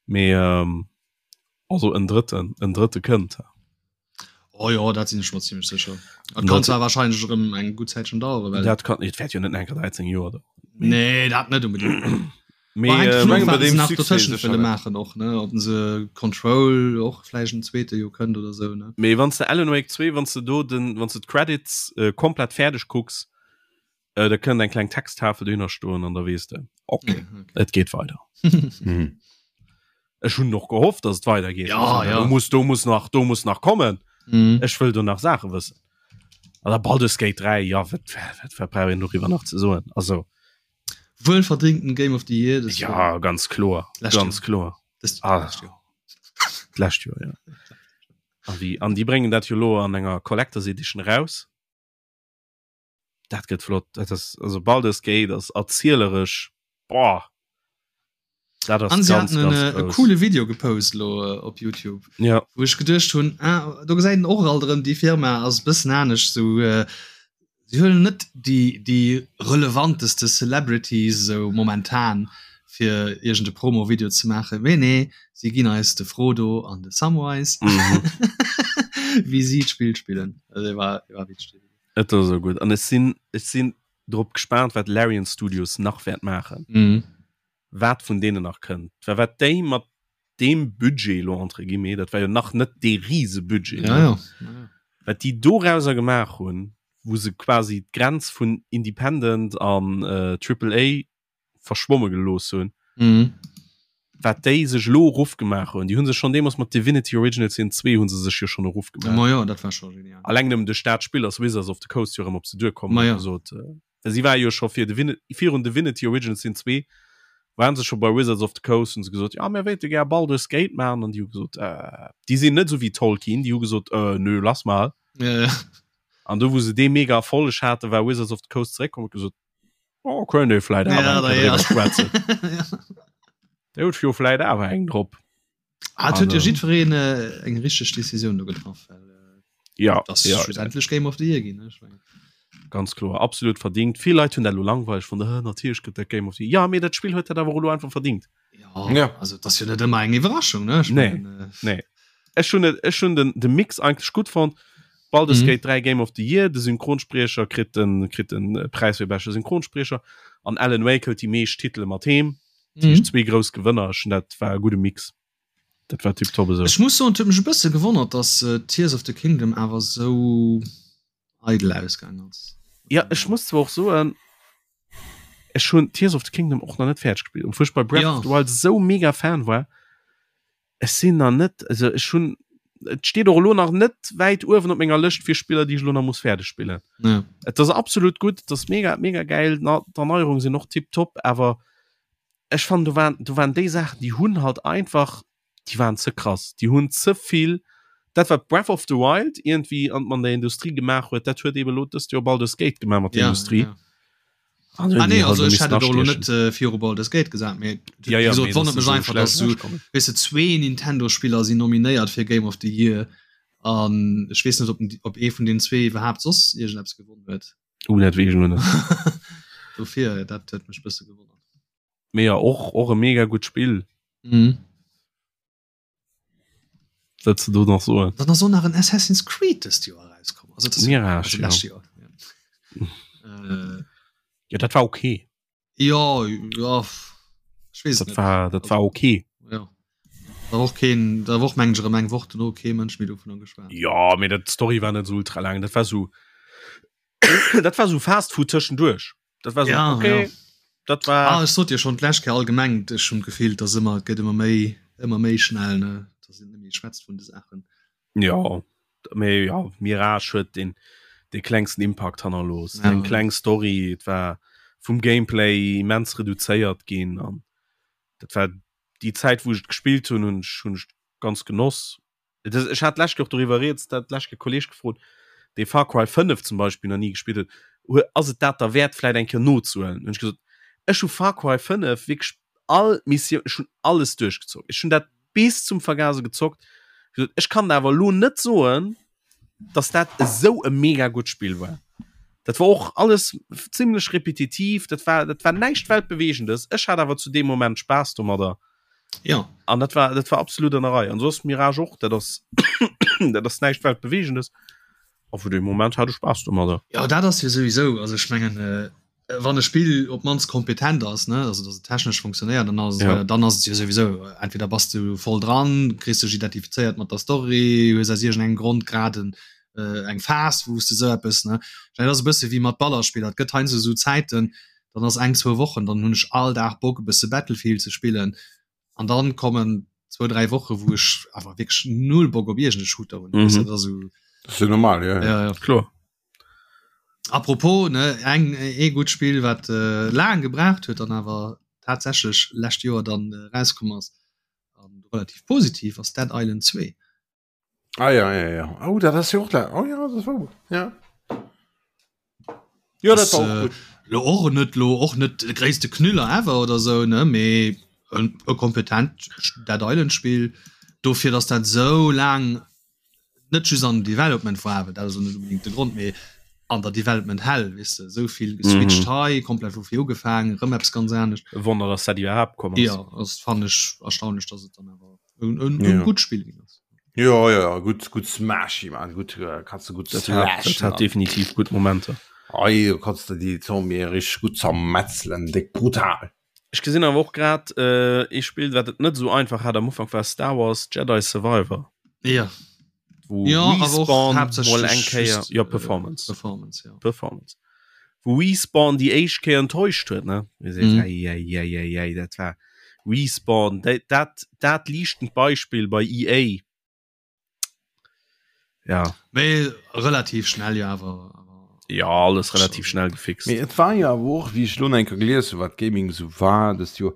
mee also en drëtten, en drëtte kënnt. Oh jo, dat sinn ech mer ziemlech sécher. Dat kann zwar wahrscheinlech erëm eng gutt Zäitchen daueren, well Dat kann, et wäert jo net enker 13 Joer daueren. Nee, dat net unbedingt. Mee, Hänkt äh, dovun mengen, of, bei wat se deem nach Succès dotëschent sécher wëlle net. maachen och, ne? Ob se Control och vläicht en zweete jo kënnt oder sou, ne? Mee wann s de Alan Wake 2, wann s de do den, wann s de d'Credits äh, komplett fäerdeg kucks, äh, da kënnt eng kleng Texttafel dohinner stoen an da weess de, okay, Ja, okay. et geet weider. Mhm. Ech hunn och gehofft, dass et weidergeet. Ja, Also, ja. Do muss, do muss nach, do muss nach kommen. Mm. Ech wëll do nach Saache wëssen. An da Baldur's Gate 3, ja, wat, wat, wat brauch een doriwwer nach ze soen? Also. Wuelverdingten Game of the Year. Ja, Jahr. ganz kloer. Lescht ganz Jahr. kloer. Das, ah. Lescht Joer. Lescht Joer, ja. An déi, an déi bréngen dat jo lo an enger Collectors Edition raus. Dat gëtt flott. Dat ass, also Baldur's Gate ass erzieleresch, boah. Dat ass An sie ganz, hatten ganz en, e coole Video gepost lo äh, op YouTube. Ja. Wou ech geduecht hunn, ah, do gesäit en och alt erëm, déi Firma ass e bëssen anescht, sou äh, si huelen net déi, déi relevanteste Celebrities sou momentan fir iergend e Promo-Video ze maachen, mee nee, si ginn eis de Frodo an de Samwise, mhm. wéi si d'Spill spillen. Also, war, war witzeg. Et ass esou gutt. An ech sinn, ech sinn drop gespaant, wat Larian Studios nach wäert maachen. Mhm. Wat vun deenen nach kënnt. Well wat déi mat deem Budget elo, entre guillemets, dat war jo nach net dee Risebudget, Ja, ja. Ja. wat déi dorauser gemaach hunn, wou se quasi d'Grenz vun Independent an äh, Triple A verschwomme gelooss hunn, mhm. wat déi sech lo erof gemaach hunn. Déi hunn sech schon deemools mat Divinity Original Sin 2 hunn se sech jo schon erof gemaach. Ma ja, dat war schon genial. Alleng nëmmen duerch dat Spill ass Wizards of the Coast jo erëm op se duerkomm Ma ja. gesot. Äh, si war jo scho fir Divin virun Divinity Original Sin 2 waren se scho bei Wizards of the Coast hunn se gesot, ja mir wéilte gär Baldur's Gate maachen an déi hu gesot, äh, déi sinn net esou wéi Tolkien, déi hu gesot, äh, nö, lass mal. Ja, ja. An do wou se dee mega Erfolleg haten, war Wizards of the Coast zeréckkomm huet gesot, Oh, könnt ihr vielleicht ja, da, ja. schwätzen. ja. Der huet jo vielleicht awer eng drop. Ah, huet jo jiddwereen äh, eng richteg Decisioun do getraff. Well, äh, ja, das ja, schlussendlech Game of the Year ginn. Ne? Ganz kloer, absolut verdingt. Vill Leit hunn dat lo langweileg fonnt. Äh, natierlech gëtt dat Game of the Year. Ja, mee dat Spill huet dat awer och lo einfach verdingt. Ja, ja. Also das jo net ëmmer eng Iwwerraschung ne? Nee, mein, äh, nee. Ech hunn ech hunn den de Mix eigentlech gutt fonnt. Baldur's mhm. Gate 3 Game of the Year, de Synchronspriecher kritt den kritt den äh, Preis fir beschte Synchronspriecher an Alan Wake huet déi meescht Titele mat heem. Mhm. Zwee grouss Gewënner, ech hunn dat war e gudde Mix. Dat war tiptop esou. Ech muss soen, et huet mech e bësse gewonnert, dass äh, Tears of the Kingdom awer sou eidel ausgaang ass. Ja, ech muss zwar och soen, ech hunn Tears of the Kingdom och nach net fäerdeg gespillt, obwuel ech bei Breath ja. of the Wild sou mega Fan war. Ech sinn nach net, also ech hunn, et steet och elo nach net wäit uewen op menger Lëscht fir Spiller, déi ech elo nach muss fäerdeg spillen. Ja. Et ass absolut gutt, et ass mega, mega gäil, d'Erneierungen sinn och tiptop, awer ech fannen do waren, do waren déi Saachen, déi hunn halt einfach, déi waren ze krass, déi hunn ze vill, dat wat Breath of the Wild iergendwéi an an der Industrie gemaach huet, dat huet eben elo dëst Joer Baldur's Gate gemaach mat der ja, Industrie. Ja. Ah, nee, also ech hätt et och net äh, viru Baldur's Gate gesat, mee ja, ja, wéi gesot, wonnert mech einfach, dass du, weess de, zwee Nintendo-Spiller sinn nominéiert fir Game of the Year an ech weess net, ob, ob ee vun den zwee iwwerhaapt soss iergendeppes gewonnen huet. Uh, dat weess ech elo net. Dofir, dat huet mech bësse gewonnert. Mee ja, och, och e mega gutt Spill. Mhm. Wat ze do nach soen? Dann ass och nach en Assassin's Creed dëst Joer erauskomm. Also das Mirage, also ja. lescht Joer. Ja. Äh, Ja, dat war okay. ja, ja, ech weess et Dat net. war, dat war okay. Ja. Da war och keen, da war och mengen ech erëm eng Woch dono kee Mënsch méi dovunner geschwat. Ja, mee dat d'Story war net sou ultra laang. Dat war sou dat war sou Fast Food tëschenduerch. Dat war sou Ja, okay. ja. Dat war Ah, ech sot dir schon d'lescht Kéier allgemeng, ech hunn d'Gefill, dass ëmmer, et gëtt ëmmer méi, ëmmer méi schnell, ne, dass een net méi schwätzt vun de Saachen. Ja, mee ja, Mirage huet den de klengsten Impakt hannerlooss. Ja. Eng kleng Story, et war vum Gameplay immens reduzéiert ginn an dat war déi Zäit wou ech et gespillt hunn, hunn ech hunn ech ganz genoss. Et ass, ech hat d'lescht Kéier och doriwwer rieds, dat d'lescht Kéier e Kolleeg gefrot, dee Far Cry 5 zum Beispill nach ni gespillt huet, hu ass et dat derwäert vläit eng Kéier nozehuelen? Hunn ech gesot, ech hu Far Cry 5 wierklech all Missioun, ech hunn alles duerchgezockt, ech hunn dat bis zum Vergase gezockt, gesot, ech kann der awer elo net soen, dass dat esou e mega gutt Spill war. Dat war och alles zimmlech repetitiv, dat war, dat war näischt Weltbewegendes. Ech hat awer zu deem Moment Spaass domadder. Ja. An dat war, dat war absolut an der Rei. An soss Mirage och, dat ass, dat ass näischt Weltbewegendes. A vu deem Moment hat ech Spaass domadder. Ja, dat ass jo souwisou, also ech mengen, äh, wann e Spill op d'mannst kompetent ass, ne, also dass et technesch funktionéiert, dann ass, Ja. äh, dann ass et jo souwisou, entweder bass du voll dran, kriss dech identifizéiert mat der Story, hues aus iergendengem Grond grad en, äh, eng Phas, wou s de sou eppes, ne. Dat ass e bësse wéi mat Ballerspiller, et gëtt heiansdo sou Zäiten, dann ass eng, zwou Wochen, dann hunn ech all Dag Bock e bësse Battlefield ze spillen an dann kommen. zwou dräi Woche wou ech awer wierklech null Bock op iergend e Shooter hunn. Mhm. Dat ass esou. Dat ass jo normal, ja. Ja, ja. Kloer. Apropos, ne, eng ee gutt Spill wat äh, laang gebraucht huet an awer tatsächlech lescht Joer dann äh, rauskomm ass an relativ positiv ass Dead Island 2. Ah ja, ja, ja. Oh, dat ass jo och la. Oh ja, dat war gut. Ja. Ja, dat Ass, war och äh, gut. lo och net lo och net de gréisste Knüller ever oder sou ne mee en e kompetent Dead Island Spill dofir dass dat sou laang net just an Development war awer dat ass net unbedingt de Grond mee an der Development Hell weess de sou vill geswitcht Mhm. hei komplett vu vir ugefaangen rëm eppes ganz anescht. E Wonner, dass dat iwwerhaapt komm ass. Ja, ass fannen ech erstaunlech dass et dann awer en, en, Ja. en gutt Spill ginn ass. Ja, ja, ja, gut, gut Smashy, man. Gut, äh, kannst du gut Dat hat, dat slashen. hat definitiv gutt Momenter. Ei, du kannst du die Zombie richtig gut zermetzelen, dick brutal. Ech gesinn awer och grad äh, ee Spill, wat et net esou einfach hat am Ufank war Star Wars Jedi Survivor. Ja. Wou Ja, awer och Respawn mol haaptsächlech eng Kéier just, ja äh, Performance. Performance, ja. Performance. Wou Respawn déi éischt Kéier enttäuscht huet, ne? Wou seet, Mhm. ei, ei, ei, ei, ei, dat war Respawn, dat, dat, dat liichtend Beispill bei EA. Ja. Mee relativ schnell jo awer. Ja, alles relativ schnell gefixt. Mee et war jo awer och, wéi ech elo nach eng Kéier gelies hunn, wat Gaming esou war dëst Joer,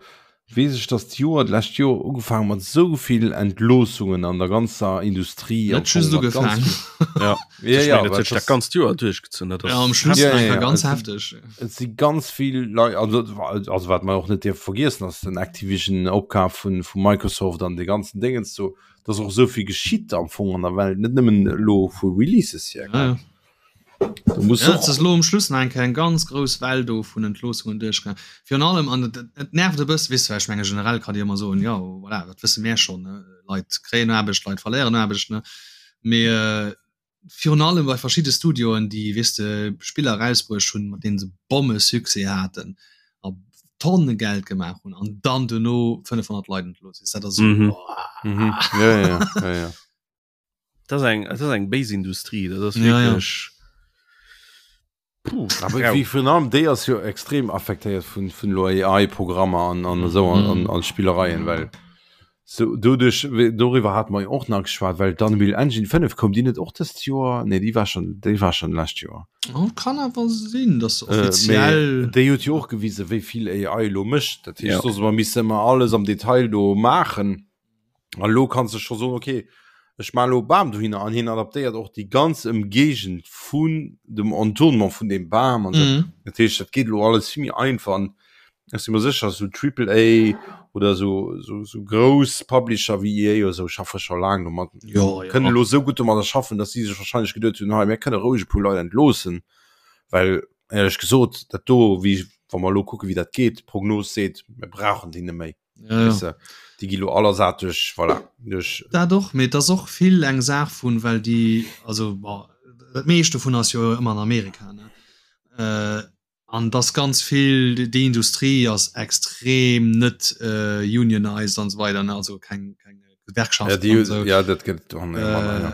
weess ech, dass d'Joer, d'lescht Joer ugefaangen mat esou vill Entloossungen an der ganzer Industrie. Net just ugefaangen. Ja, ja, ech ja, mengen, dat huet sech dat ganzt Joer duerchgezunn. Dat ass Ja, am Schluss Ja, ja, einfach ja, ganz et hefteg. Et si ganz vill Leit, also, also wat mer och net dierfe vergiessen, ass den Activision-Opkaf vun, vu Microsoft an de ganzen Dingens do, dass och esou vill geschitt am Fong an der Welt, net nëmmen elo vu Releases hier. Ja, ja. Du muss Ja, och et ass elo um Schluss nach eng Kéier eng ganz grouss Well do vun Entloossungen duerchgaangen. Virun allem, an et, et nervt e bëssen, weess du, well ech menge generell kann Dir ëmmer soen, jo voilà, dat wësse mär schonn, ne, Leit kréien Aarbecht, Leit verléieren Aarbecht, ne, mee virun allem bei verschidde Studioen, déi, weess de, Spiller erausbruecht hunn, mat deene se Bommesuccès haten a Tonne Geld gemaach hunn an dann duerno 500 Leit entlooss, weess, dat ass esou, Mhm. boah. Mhm. Ja, ja, ja, ja. Das ist eng, das ist eng béis Industrie, dat ass Ja, ja. wierklech. Puh, Aber rau. wéi virun allem déi ass jo extrem affektéiert vun vun lo AI-Programmer an an esou an, an, an Spillereien, well so doduerch wéi- doriwwer hat mer jo och nach geschwat, well d'Unreal Engine 5 koum déi net och dëst Joer? Nee, déi war schon déi war schon lescht Joer. Oh, kann awer sinn, dass se Äh, mee offiziell. déi huet jo och gewise wéi vill AI lo mécht. Dat heescht, Ja. soss mer misse mer alles am Detail do maachen. An elo kanns de scho soen, okay, ech maachen elo e Bam dohinner an hien adaptéiert och déi ganz Ëmgéigend vun dem Entournement vun deem Bam an esou. Mhm. Dat heescht, dat geet elo alles vill méi einfach an ech si mer sécher, esou Triple A oder esou, esou, esou grouss Publisher wéi EA oder esou schaffe scho laang domat, Jo, jo. kënnen elo esou gutt domadder schaffen, datt si sech wahrscheinlech geduet hunn, hei, mir kënne roueg e puer Leit entloossen, well éierlech gesot, dat do, wéi, wa mer elo kucken, wéi dat geet, d'Prognos seet, mir brauchen déi net méi. Ja, ja. Weißt du, déi gi lo all ersat duerch, voilà, duerch. Dat och, mee et ass och vill eng Saach vun, well déi, also bon, dat meescht dovun ass jo ëmmer an Amerika, ne? Äh, an dass ganz vill, déi Industrie ass extrem net äh, unionized an esou weider, ne? Also keng, keng Ja, Gewerkschaften déi, an esou. ja, dat gëtt och net manner, ja. Äh,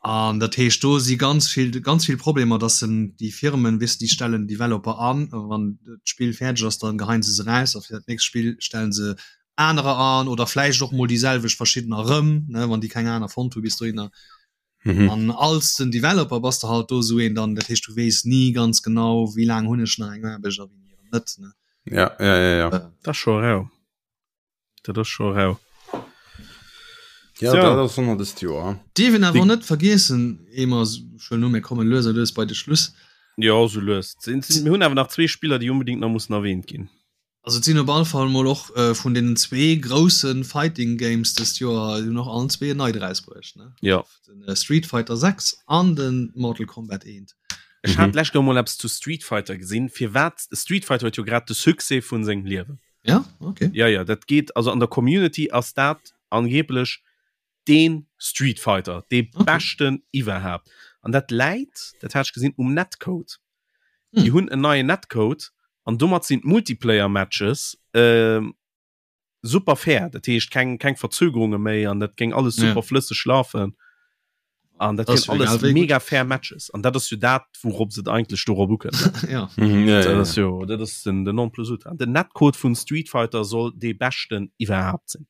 an dat heescht, do si ganz vill, ganz vill Problemer, dass en déi Firmen, weess de, déi stellen Developer an, a wann d'Spill fäerdeg ass, dann geheien se se raus a fir dat nächst Spill stellen se anerer an oder vläicht och mol déi selwecht verschiddener erëm, ne, wann déi keng aner fonnt hu bis dohinner. Mhm. An als den Developer bass de halt do esou een dann, dat heescht, du weess ni ganz genau, wéi laang hunn ech nach eng Aarbecht a wéini erëm net, ne. Ja, ja, ja, ja. Dat ass scho rau. Dat ass scho rau. Ja, So. dat ass ëmmer dëst Joer. Dierf een awer Déi- net vergiessen, ehe mer schon no, mir kommen lues a lues bei de Schluss. Ja, sou lues. Sinn- sinn- Mir hunn awer nach zwee Spiller, déi unbedingt nach mussen erwähnt ginn. Also et sinn op alle Fall mol och äh, vun deenen zwee grousse Fighting Games dëst Joer hunn och allen zwee en neit erausbruecht, ne? Ja. Den äh, Street Fighter 6 an den Mortal Kombat 1. Ech Mhm. hat d'lescht Joer mol eppes zu Street Fighter gesinn. Firwat? Street Fighter huet jo grad de Succès vun sengem Liewen. Ja, okay. Ja, ja, dat geet, also an der Community ass dat angeblech deen Street Fighter, dee Okay. beschten iwwerhaapt. An dat läit, dat hat ech gesinn, um Netcode. Hm. Déi hunn en neien Netcode an domat sinn d'Multiplayer-Matches ähm, super fair. Dat heescht keng, keng Verzögerunge méi an dat géing alles Ja. super flësseg lafen. An dat Das wieren wär alles egal wéi gutt. mega fair Matches. An dat ass jo dat, wourop se et eigentlech dorop ukënnt. Ja. Mhm, ja, Dat ja, ass ja. jo, dat ass den, den Nonplusultra. Den Netcode vun Street Fighter soll dee beschten iwwerhaapt sinn.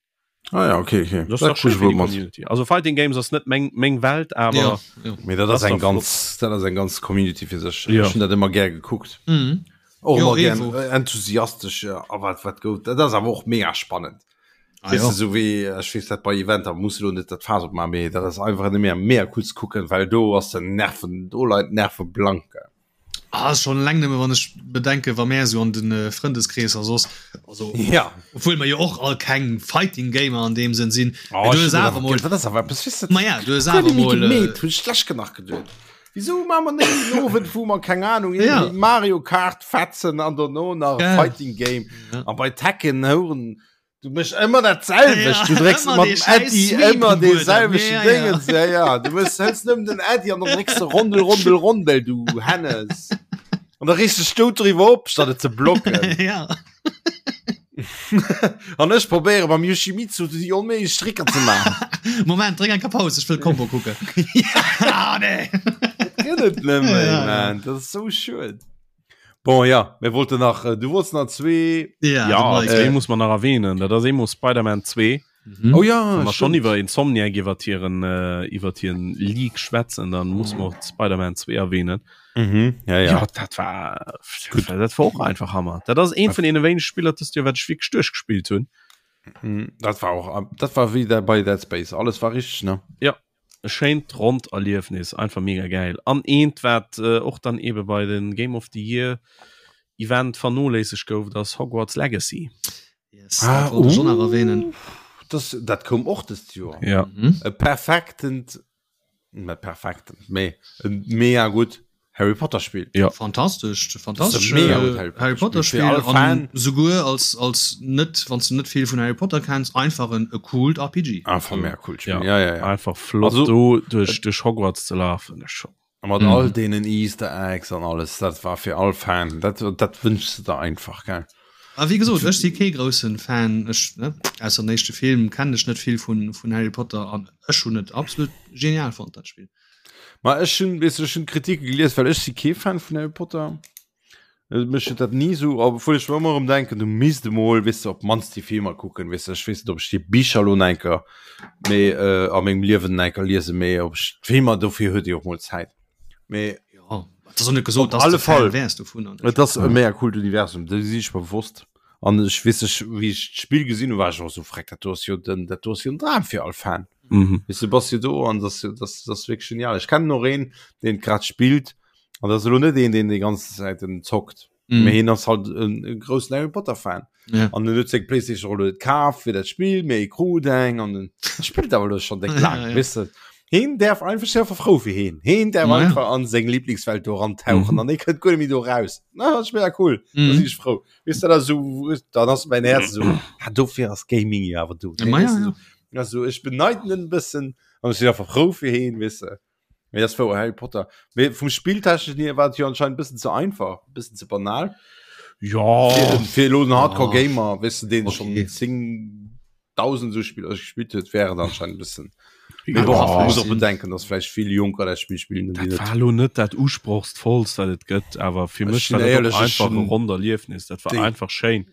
Ah ja, okay, okay. Das das schön für Community. Also Fighting Games ass net meng, meng Welt, awer ja, ja. Mee dat ass eng ganz dat ass eng ganz Community fir sech. Ja. Ech hunn dat ëmmer gär gekuckt. Mhm. Och Jo, ëmmer gär Evo. äh, enthusiastesch äh, a wat wat gouf. Dat ass awer och mega spannend. Ah, Weess ja. de, sou wéi ech weess dat bei Eventer muss elo net dat Faass opmaachen, mee dat ass einfach nëmme mega cool ze kucken, well do ass den Nerven, do leien d'Nerve blank. Ah, schon eleng nëmme wann ech bedenke wa mär esou an den äh, Frëndeskreesser soss also Ja. obwuel mer jo och all keng Fighting Gamer an deem Sënn sinn. Oh, Mee du ech hues hunn dat awer awer mol ge- dat ass awer eppes, weess de, Ma ja, du hues guer awer net méi mol äh, gemeet, hunn ech lech nach geduet. Wieso maache mer net en Owend, wou mer, keng Ahnung, Ja. irgendwie Mario Kart fetzen an dono nach Gell. Fighting Game Ja. an bei Tekken houren du méchs ëmmer dat selwecht, Ja, du drécks ëmmer mat dee dem scheiß Äddi Sweep ëmmer um dee Buedem. selwechten Ja, ja. Dingens, ja, ja, du méchs hëls nëmmen den Äddi an dann drécks de Rondel, Rondel, Rondel, du Hennes. An da reegst dech dout driwwer op, statt et ze blocken. Ja. An ech probéiere beim Yoshimitsu déi onméiglech Stricker ze maachen. Moment, dréck eng Paus, ech wëll d'Kombo kucken. Ah, nee. Dat gëtt et net méi, Ja, ja. man. Dat ass sou schued. Bon, ja, mir wollten nach, äh, du wolltest nach zwee. Ja, Ja, de zwee Mike. muss man nach erwähnen. Dat ass eemol Spider-Man 2. Mhm. Oh ja, Wann mer schon stimmt. iwwer Insomniac iwwer hiren äh, iwwer hiren Leak schwätzen, dann muss man och Spider-Man 2 erwähnen. Mhm, ja, ja. Ja, dat war gut. Dat war och einfach Hammer. Dat ass een vun deene wéinege Spiller dëst Joer, wat ech wierklech duerchgespillt hunn. Mhm, Dat war auch, dat war wéi der bei Dead Space. Alles war richtig, ne? Ja. E schéint ronnt Erliefnis, einfach mega gäil. An eent wat och dann ebe bei den Game of the Year Event vernoléissegt gouf, dat ass Hogwarts Legacy. Yes, dat wollt ech och nach erwähnen. Das, dat koum och dëst Joer. Ja. Mhm. E perfektent, net perfektent, mee e mega gutt Harry Potter Spill. Ja. Fantastesch, fantastesch mega äh, gut Harry Potter Harry Potter Spiel. Fir Spiel alle Fan. an souguer als als net wann du net vill vun Harry Potter kenns einfach en e coolt RPG. Einfach mega cool Spiel. Ja. Ja, ja, ja. Einfach flott Also, do duerch, duerch Hogwarts ze lafen, das schon. A mat Mhm. all deenen Easter Eggs an alles, dat war fir all Fan, dat, dat wënschs de der einfach, gell? A wéi gesot, ech si kee groussen Fan, ech ne, ausser den éischte Film kennen ech net vill vun vun Harry Potter an ech hunn et absolut genial fonnt dat Spill. Ma ech hunn, weess du, ech hunn Kritike gelies, well ech si kee Fan vun Harry Potter. Äh, Mech huet dat ni sou, obwuel ech mer ëmmer erëm denken, du misst emol, weess du, op d'mannst déi Filmer kucken, weess du. Ech weess net, ob ech déi Bicher elo nach eng Kéier méi äh, a mengem Liewen nach eng Kéier liesen, mee ob ech d'Filmer, dofir huet ee och mol Zäit. Mee Ja, et ass och net gesot, Op dass alle de Fan Fall. wäers dovun. an Et ass e mega coolt Universum, do si ech mer bewosst. An ech weess ech, wéi ech d'Spill gesinn hunn, war ech och esou, Freck, dat do ass jo den, dat do ass jo en Dram fir all Fan. Mhm. Weess du, bass jo do an das, das, das ass wierklech genial. Ech kennen och een, deen et grad spillt, an dat ass elo net een, deen déi ganz Zäit en zockt. Mhm. Mee hien ass halt en, e groussen Harry Potter Fan. Ja. An en huet seng Playstation och elo net kaf fir dat Spill, mee e krut eng an en spillt awer elo schonn déck laang, Ja, ja. weess de. Heen däerf einfach, ech si einfach frou fir heen. Heen däerf Ma ja. einfach an seng Lieblingswelt do erantauchen Mhm. an hee kënnt guer net méi do raus. Na, dat ass mega cool. Da Mhm. sinn ech frou. Weess de, dat ass esou, dann ass mäin Häerz esou, ah, dofir ass Gaming jo awer do. Ma ja, ja. Also ech beneiden en e bëssen an ech sinn einfach frou fir heen, weess de. Mee dat ass wouer, Harry Potter. Mee vum Spilltechneschen hier war et jo anscheinend e bëssen ze einfach, e bëssen ze banal. Ja. Fir, fir elo en Hardcore Ah. Gamer, weess de, deen Okay. schonn 10.000 esou Spiller gespillt huet, wär et anscheinend e bëssen. Mee Ja, bon, ja, muss och sinn. bedenken, dass vläicht vill Jonker dat Spill spillen, déi Dat net. war elo net dat usprochsvollst, wat et gëtt, awer fir Ech mech sinn war dat och éierlech, ech einfach e hunn ronnt Erliefnis. Dat war déi- einfach schéin.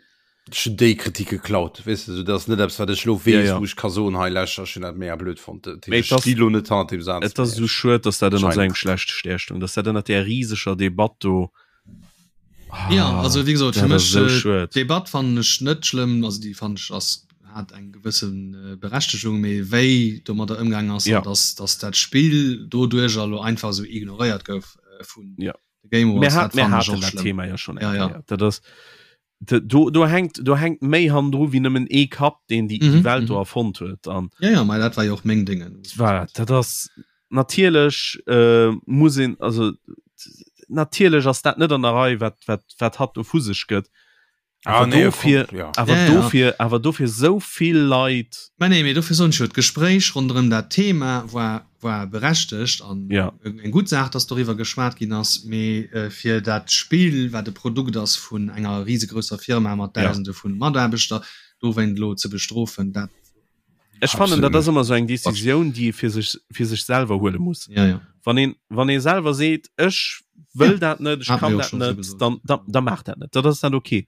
Ech hunn déi Kritik geklaut, weess de, dat ass net eppes, wat ech elo weess, Ja, ja. wou ech ka soen, hei lauschter, ech hunn dat mega blöd fonnt. Dat Mee heescht, et ech ass- sti lo net hannert deem Saz. Et ass esou schued, dass dat ënner esou Anscheinend. engem schlechte Stär stoung, dass dat ënner där riseger Debatt do. Ah, Ja, also wéi gesot, fir dat ass mech esou äh, schued. d'Debatt fannen ech net schlëmm, also déi fannen ech ass hat eng gewëssen äh, Berechtegung, mee wéi domadder ëmgaang ass Ja. an dass, dass dat Spill doduercher elo einfach esou ignoréiert gouf äh, vun Ja. de Game Mir Awards, hat, dat mir fannen ech haten och dat schlëmm. Thema ja schon eng Ja, ja. Kéier. Dat ass, do, do hänkt do hänkt méi hannendru wéi nëmmen ee Kapp, deen déi, déi Mhm, Welt do mhm. erfonnt huet. An Ja, ja, mei dat war jo och meng Dingen. voilà, dat ass natierlech äh, muss een also natierlech ass dat net an der Rei, wat, wat, wat hatt do vu sech gëtt. Ah, Awer nee, dofir, kommt, ja. awer Ja, ja. dofir, awer dofir sou vill Leit. Mä nee, mee dofir soen ech jo, d'Gespréich ronderëm dat Thema war, war berechtegt an Ja. eng gutt Saach, dass doriwwer geschwat ginn ass. Mee fir dat Spill, wat e Produkt ass vun enger risegrousser Firma mat Ja. Dausende vu Mataarbechter, dowéint elo ze bestrofen, dat. Ech fannen, Absolut dat ass net. ëmmer esou eng Decisioun, déi ee fir sech, fir sech selwer huele muss. Ja, ja. Wann een, wann ee selwer seet, ech wëll Ja, dat net, ech hat kann mir och dat schon so net, gesot. dann, dann, dann maach dat net. Dat ass dann okay.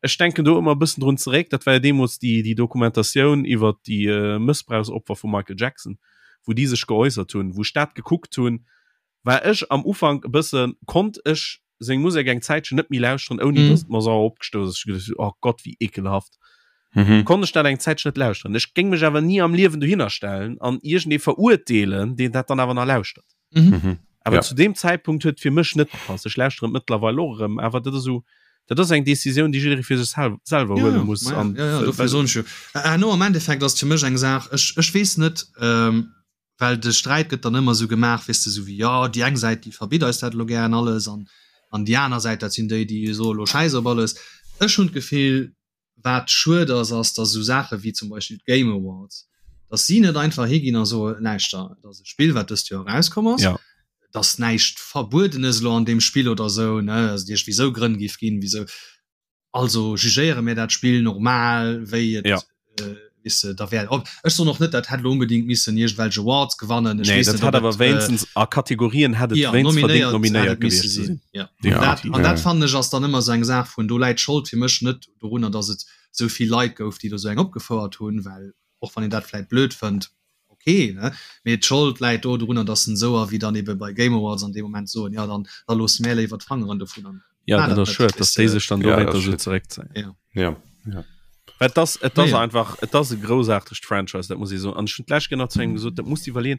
Ech denken do ëmmer e bëssen drun zeréck, dat war jo deemools déi, déi Dokumentatioun iwwert déi äh, Mëssbrauchsopfer vum Michael Jackson, wou déi sech geäussert hunn. Wou ech dat gekuckt hunn, war ech am Ufank e bëssen, konnt ech seng Musek eng Zäitchen net méi lauschteren, ouni mm. dass et mer sauer opgestouss ass. Ech geduecht, oh Gott, wéi ekelhaft. Mhm. Konnt ech dat eng Zäitchen net lauschteren. Ech géing mech awer ni am Liewen dohinner stellen an iergendee verurteelen, deen dat dann awer nach lauschtert. Mhm. Mhm. Awer ja. zu deem Zäitpunkt huet fir mech net gepasst. Ech lauschtere mëttlerweil och erëm, awer dat ass esou, dat ass eng Decisioun, déi jidderee fir sech sel selwer ja, huele muss. Ja, an, ja, ja, dofir soen ech jo. Herno am Endeffekt ass fir mech eng Saach, ech, ech weess net, ähm, well de Sträit gëtt dann ëmmer esou gemaach, weess de, esou wéi, jo, déi eng Säit, déi verbitt eis dat elo gären alles an, an déi aner Säit, dat sinn déi, déi soe elo Schäiss op alles. Ech hunn d'Gefill, wat schued ass, ass, datt esou Saache wéi zum Beispill d'Game Awards, datt si net einfach higinn a soe, Lauschter, et ass e Spill, wat dëst Joer erauskomm ass, Ja. et ass näischt Verbuedenes elo an deem Spill oder esou, ne, also et iergendwéi esou Grënn géif ginn, wisou. Also jugéiere mir dat Spill normal wéi et ja. äh, weess de, da wär op. Ech soen och net, dat hätt lo unbedingt missen iergendwelch Awards gewannen. Ech nee, weess dat net, hat awer wéinstens äh, a Kategorien hätt et ja, wéinst verdéngt nominéiert hätt et misse gewiescht ze sinn. Ja. Ja. Dat, an dat fannen ech ass dann ëmmer sou eng Saach vun, do läit d'Schold fir mech net dorunner, datt et sou vill Leit gouf, déi do sou eng opgefouert hunn, well och wann een dat vläit blöd fënnt, ok, ne, mee d'Schold läit do dorunner, datt en esou a wéi dann ebe bei Game Awards an deem Moment soen, jo dann da loosse mär léiwer d'Fangeren dovun an Ja, dat ass schued, datt déi sech dann dowéinter esou zeréckzéien. Ja. Ja, ja. Well et ass, et ass einfach, et ass e groussaartegt Franchise, dat muss ee soen. An ech hunn d'lescht Kéier nach zu engem gesot, dat muss de iwwerleeën,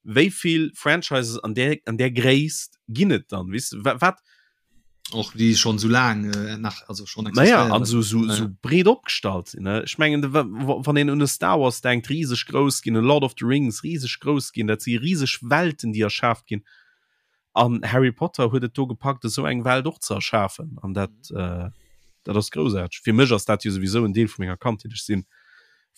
wéi vill Franchises an där, an där Gréisst ginn et dann, weess de, wat, Och déi schon sou laang äh, nach also schon Naja, an so, so, so breet opgestallt sinn. Ne? Ech mengen, wann een un e Star Wars denkt, rieseg grouss ginn, en Lord of the Rings rieseg grouss ginn, dat si rieseg Welten, déi erschaaft ginn. An Harry Potter huet et do gepackt, esou eng Welt och ze erschafen. An dat, äh, dat ass groussaarteg. Fir mech ass dat jo souwisou en Deel vu menger Kandheet. Ech sinn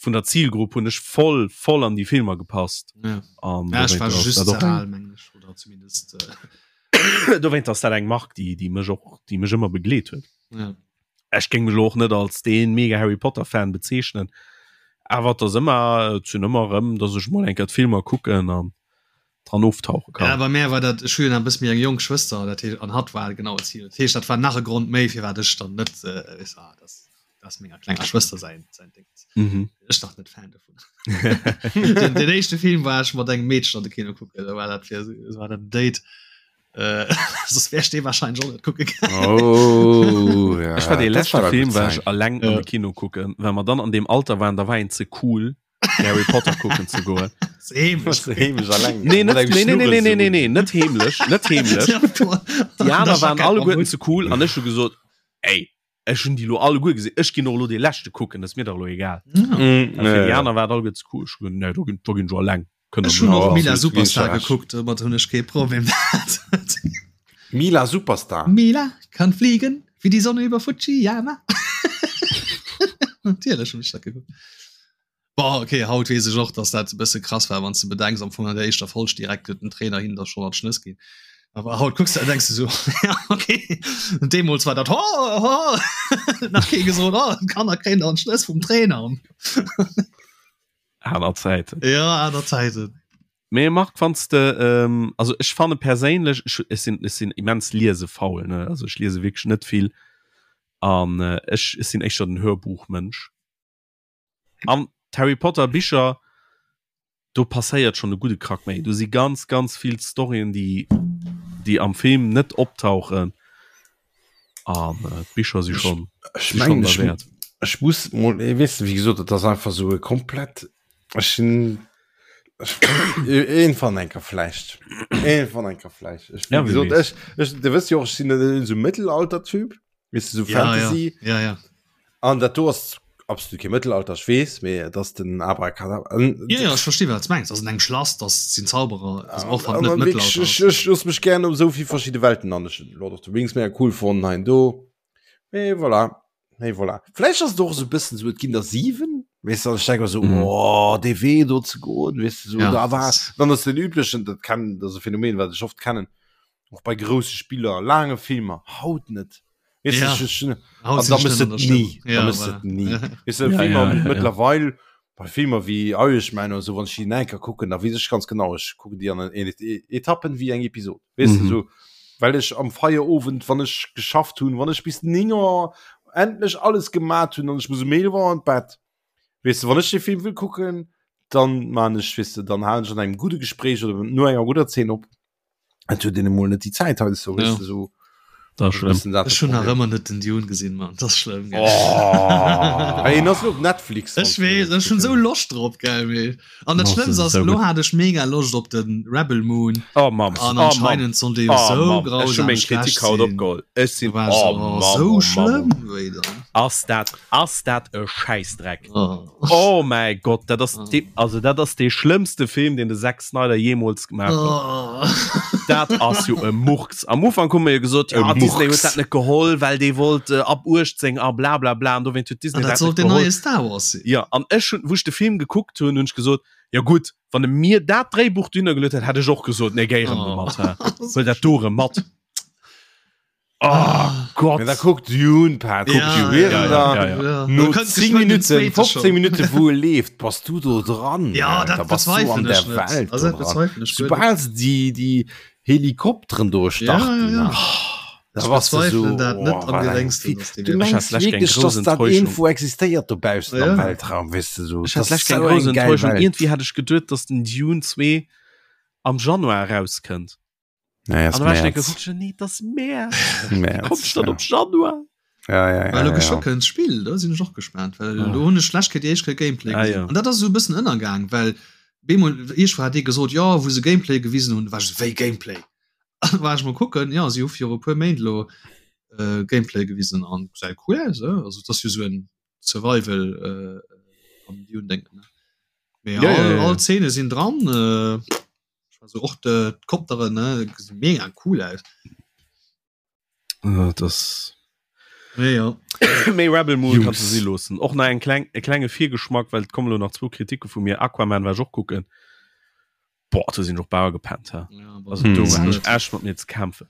vun der Zielgrupp hunn ech voll voll an déi Filmer gepasst. Ja. An ja, ech war just ze al, mengen ech, oder zumindest. Äh Dowéint ass dat eng Mark, déi, déi mech och, déi mech ëmmer begleet huet. Ja. Ech géing mech elo och net als dee mega Harry Potter Fan bezeechnen, awer et ass ëmmer, et sinn ëmmer erëm, dass ech mol eng Kéier d'Filmer kucken an dran oftauche kann. Ja, bei mär war dat, ech hu jo nach e bësse méi eng jonk Schwëster, dat heescht, an hatt war genau d'Zil. Dat heescht, dat war nach e Grond méi, firwat ech dann net, weess de, ah, dat ass menger klenger Schwëster säin, säin Ding. Mhm. Ech nach net Fan dovun. den, den éischte Film war ech mat engem Meedchen an de Kino kucken, da war dat fir war dat Date. Äh, sos wär ech dee wahrscheinlech och net kucke gaangen. Oh, ja. Ech war dee leschte Film war ech alleng an de Kino kucken, well mer dann an deem Alter waren, da war een ze cool fir Harry Potter kucken ze goen. Heemlech. Heemlech alleng. Nee, net, nee, nee, nee, nee, nee, nee, nee, net heemlech, net heemlech. Déi aner waren alleguerten ze cool an ech hu gesot, ey, Ech hunn déi lo alleguer gesinn. Ech ginn och lo dee leschte kucken, dat ass mir dach lo egal. Mm, A fir déi aner war et alleguer ze cool. Ech hunn gesot, nee, do ginn, do ginn ech alleng. Kënnt Ech hunn och Mila Superstar gekuckt, domat hunn ech kee Problem. Mila Superstar? Mila kann fliegen wie die Sonne über Fujiyama. Natierlech hunn ech dat gekuckt. Boah, okay, haut weess ech och, dass dat e bësse krass war, wann s de bedenks, am Fong an der éischter Folg direkt huet den Trainer hinnen da schonn an d'Schnëss ginn. Awer haut kucks de a denks de sou, ja, okay. Und deemools war dat, ho, ho, nach kee gesot, oh, d'Kanner kréien da an d'Schnëss vum Trainer. Aner Zäiten. Ja, aner Zäiten. Mee Marc, wann s de, ähm, also ech fanne perséinlech, ech, ech sinn, ech sinn immens liesefaul, ne, also ech liese wierklech net vill an äh, ech, ech sinn éischter den Hörbuchmënsch. An d'Harry Potter Bicher, do passéiert schon e gudde Krack méi. Do si ganz ganz vill Storyen, déi déi am Film net optauchen. An äh, d'Bicher si schon, Ech si schon mengen, ech, derwäert. ech muss mol, eh, weess de, wéi gesot, et ass einfach sou e komplett, ech sinn, ech, iergendwann eng Kéier vläicht, iergendwann eng Kéier vläicht. Ech, Ja, wéi wie gesot, weess. ech, ech, de wësst jo och, ech sinn net esou Mëttelalter-Typ. Weess de, so Ja, ja, Fantasy. ja, ja. An dat do ass absolut kee Mëttelalter, ech weess, mee et ass den Abracadabra. An, Ja, ja, ech versti wat s mengs. Ass an engem Schlass, das sinn Zauberer, also och wann an, et net an wirklich, Mëttelalter ech, ass. ech looss mech gern op esou vill verschidde Welten an. Ech hunn Lord of the Rings mega cool fonnt, hei an do. Mee voilà, mee voilà. Vläicht ass et och esou e bëssen esou, et ginn der 7, weess de, an ech denke mer esou, Mhm. oh, dee Wee do ze goen, weess de, esou, Ja, da war, das- dann ass den üblechen, dat kennen, dat ass e Phänomen, wat ech oft kennen, och bei grousse Spiller, laange Filmer, haut net. Weißt Ja. du, ich, ich, Haut an sinn da d'Stënn mëss an et der Stëmm. nie, da Ja, mëss voilà. et nie. Weißt du, Ja, Filmer ja, ja, ja. mittlerweile, bei Filmer wie Irishman oder so, wann ich die enker kucken, da weess ich ganz genau, ich kucken die an en Etappen wie eng Episode. Weißt du, Mhm. so, well ich am Feierowend, wann ich geschafft hunn, wann ich bis 9 Uhr. endlech alles gemat hunn an ech muss um 11 Auer an d'Bett. Weess de, wann ech de Film wëll kucken, dann man ech, weess de, dann halen ech an engem gudde Gespréich oder no enger gudder Zeen op. Et huet een emol net déi Zäit hei so, weess Ja. de, so. Dat ass E bëssen dat Ech de hunn nach Problem. ëmmer net den Dune gesinn, Mann. Dat ass schlëmm, gell? Oh. Hey, en ass lo op Netflix. Ech weess, ech hunn esou Loscht drop, gell, mee. An dat Oh, Schlëmmst das ass, ist so lo gut. hat ech mega Loscht op den Rebel Moon. Oh Mamm, An oh Mamm. anscheinend soll dee jo Oh, sou Mamm. Ech hu grausam meng schlecht Kritik haut sinn. opgeholl. Ech sinn Du warst oh, oh, Mamm, sou oh, Mamm. schlëmm wéi dann. Ass dat ass dat e Schäissdreck. Oh. Oh mäi Gott, dat ass Oh. de, also dat ass dee schlëmmste Film, deen de Zack Snyder jeemools gemaach huet. Oh. Dat ass jo e Murks. Am Ufank hu mer jo gesot, E ja, Disney huet Murks. dat net geholl, well dee wollt äh, ab 18 a bla bla bla an dowéint huet Disney An dat dat sollt net den geholl. neie Star Wars sinn. Ja, an ech hunn, wou ech de Film gekuckt hunn, hunn ech gesot, ja gutt, wann e mir dat Dréibuch dunner geluet hätt, hätt ech och gesot, nee, géi erëm Oh. domat, hä. Huel dat do erëm mat. Oh Ah. Gott. Ja, da kuckt Dune, Pat. Ja, Kuckt Dune. ja, da, ja, ja. Ja. No Du könntest 10 geschwind den Minuten, zweiten 15 schon. Minuten wou e leeft, bass du do dran. Ja, da dat bass du an bezweifelen der ech net. Welt. Also, do dat dran. bezweifelen ech guer net. Sobal se déi, déi Helikopteren do starten, Ja, ja, ja. da Ech bass du so, bezweifelen dat net oh, am wat eng geréngsten, Fi- dass dee Du wierklech- Ech mengs hat lech keng wierklech, grouss dass dat Enttäuschung. irgendwo existéiert dobaussen am Ja. Weltraum, weess de so. Ech Das hat lech ist keng so grouss eng geil Enttäuschung. Welt. Irgendwie hat ech geduet, dass den Dune 2 am Januar erauskënnt. Naja, An ist da war ich März. denke, nee, das März. März, Kommt dann ja. op Januar. Ja, ja, ja, Well lo ja, geschwë ja. kënnt d'Spill, do sinn ech och gespaant, well Ah. do hunn ech schlecht kritt déi éischt Kéier Gameplay Ah, gesinn. ja. An dat ass esou e bëssen ënnergaang, well bemol iergendwou hat ee gesot, jo wou se Gameplay gewisen hunn, war ech esou, wéi Gameplay? An war ech mol kucken, jo si hu viru e puer Méint elo äh, Gameplay gewisen an gesäit cool aus, eh? Also et ass jo esou en Survival äh, am Dune-Déngen, ne? Mee Ja, ja, all, ja, ja. all Zeene sinn dran, äh, also och de d'Kopteren, ne, gesinn mega cool aus. Äh, das Mee jo. Méi Rebel Moon Jungs. kannst du si loossen. Och nach eng kleng, e klenge Virgeschmack, well et kommen lo nach zwou Kritike vu mir. Aquaman war ech och kucken. Boah, do sinn ech och bauer gepennt. Hä? Ja, aber Also Hm. do das hat net. ech echt mat mir ze kämpfen.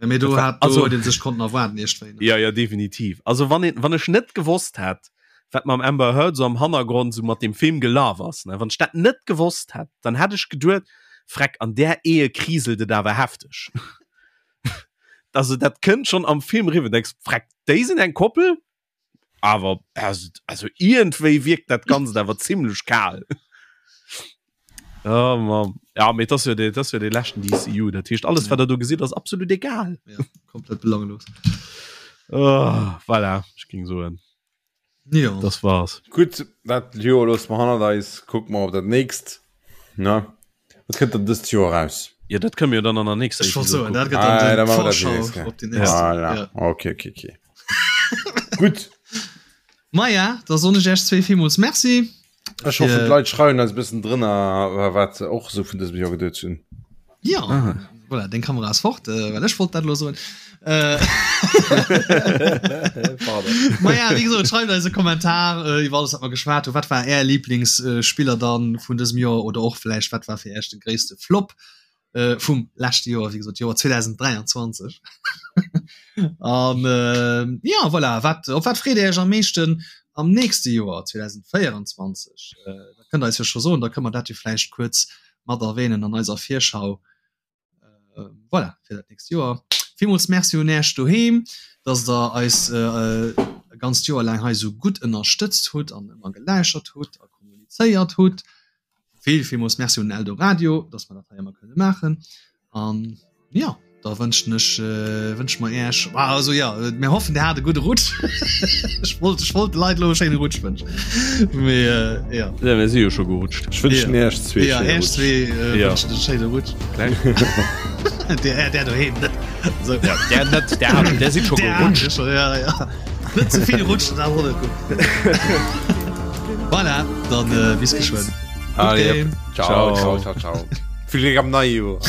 Ja, mee do Dat war- hat do also- huet een sech konnten erwaarden iergendwéi, ne? Ja, ja, definitiv. Also wann, een, wann ech net gewosst hätt, wat mam Amber Heard so am Hannergrond so mat dem Film gelaf ass, ne? Wann ech dat net gewosst hätt, dann hätt ech geduet, Freck, an där Ehe kriselt et awer hefteg. Also dat kënnt schon am Film riwwer, denkst, Freck, déi sinn eng Koppel? Awer also, also iergendwéi wierkt dat Ganzt awer zimmlech kal. Oh Mann. Ja, mee dat ass jo dee, dat ass jo dee leschten DCU. Dat heescht, alles, wat der do gesitt, ass absolut egal. Ja, komplett belanglos. Oh, voilà, ech ging soen. Ja. Das war's. Gutt, dat Joer loosse mer hannert eis, kucke mer op dat nächst. Ne? Wat kënnt dann dëst Joer eraus? Ja, dat kënne mir jo dann an der nächster Ech wollt Episode soen, dat kucken. gëtt dann Ah, den da machen wir dat die Vorschau nächste. op déi nächst. Voilà. Ja. Okay, okay, okay. Gutt. Maja, da soen ech Iech zwee villmools Merci. Ech hoffen, d'Leit schreiwen eis e bëssen drënner, wat se och esou vun dësem Joer geduet hunn. Ja, ah. voilà, deng Kamera ass fort, äh, well ech wollt dat lo soen. Äh, Ma ja, wéi gesot, schreift eis e Kommentar äh, iwwer alles, wat mer geschwat hunn. Wat war Är Lieblingsspiller äh, dann vun dësem Joer oder och vläicht wat war fir Iech de gréisste Flop äh, vum leschte Joer, wéi gesot Joer 2023. An äh, ja, voilà, wat, op wat freet Dir Iech am meeschten am nächste Joer 2024? Äh, dat kënnt Der eis jo scho soen, da kënne mer dat jo vläicht kuerz mat erwähnen an eiser Virschau. Äh, voilà, fir dat nächst Joer. Villmools Merci un Äech doheem, dass der eis äh, e ganzt Joer laang hei esou gutt ënnerstëtzt hutt an ëmmer geläuschert hutt a kommunizéiert hutt. Vill, villmools Merci un Eldoradio, dass mer dat hei ëmmer kënne maachen. An ja, da wënschen ech äh, wënsche mer Äech, ah, also ja, mir hoffen, Dir hat e gudde Rutsch. Ech wollt, ech wollt de Leit elo e schéine Rutsch wënschen. Mee äh, ja. Ja, mir si jo scho gerutscht. Ech wënschen Ja. Iech zwee Ja, schéine Äech Rutsch. zwee äh, Ja. wënschen e schéine Rutsch. Kleng. Der, der doheem net. So. Ja, der net, der, hat- der sieht schon Der gerutscht. hat schon, ja, ja. Net ze vill rutschen, dat ass och net gutt. Voilà, dann äh, bis geschwënn. Allez, Game. Ciao, ciao, ciao, ciao. Vill Gléck am neie Joer.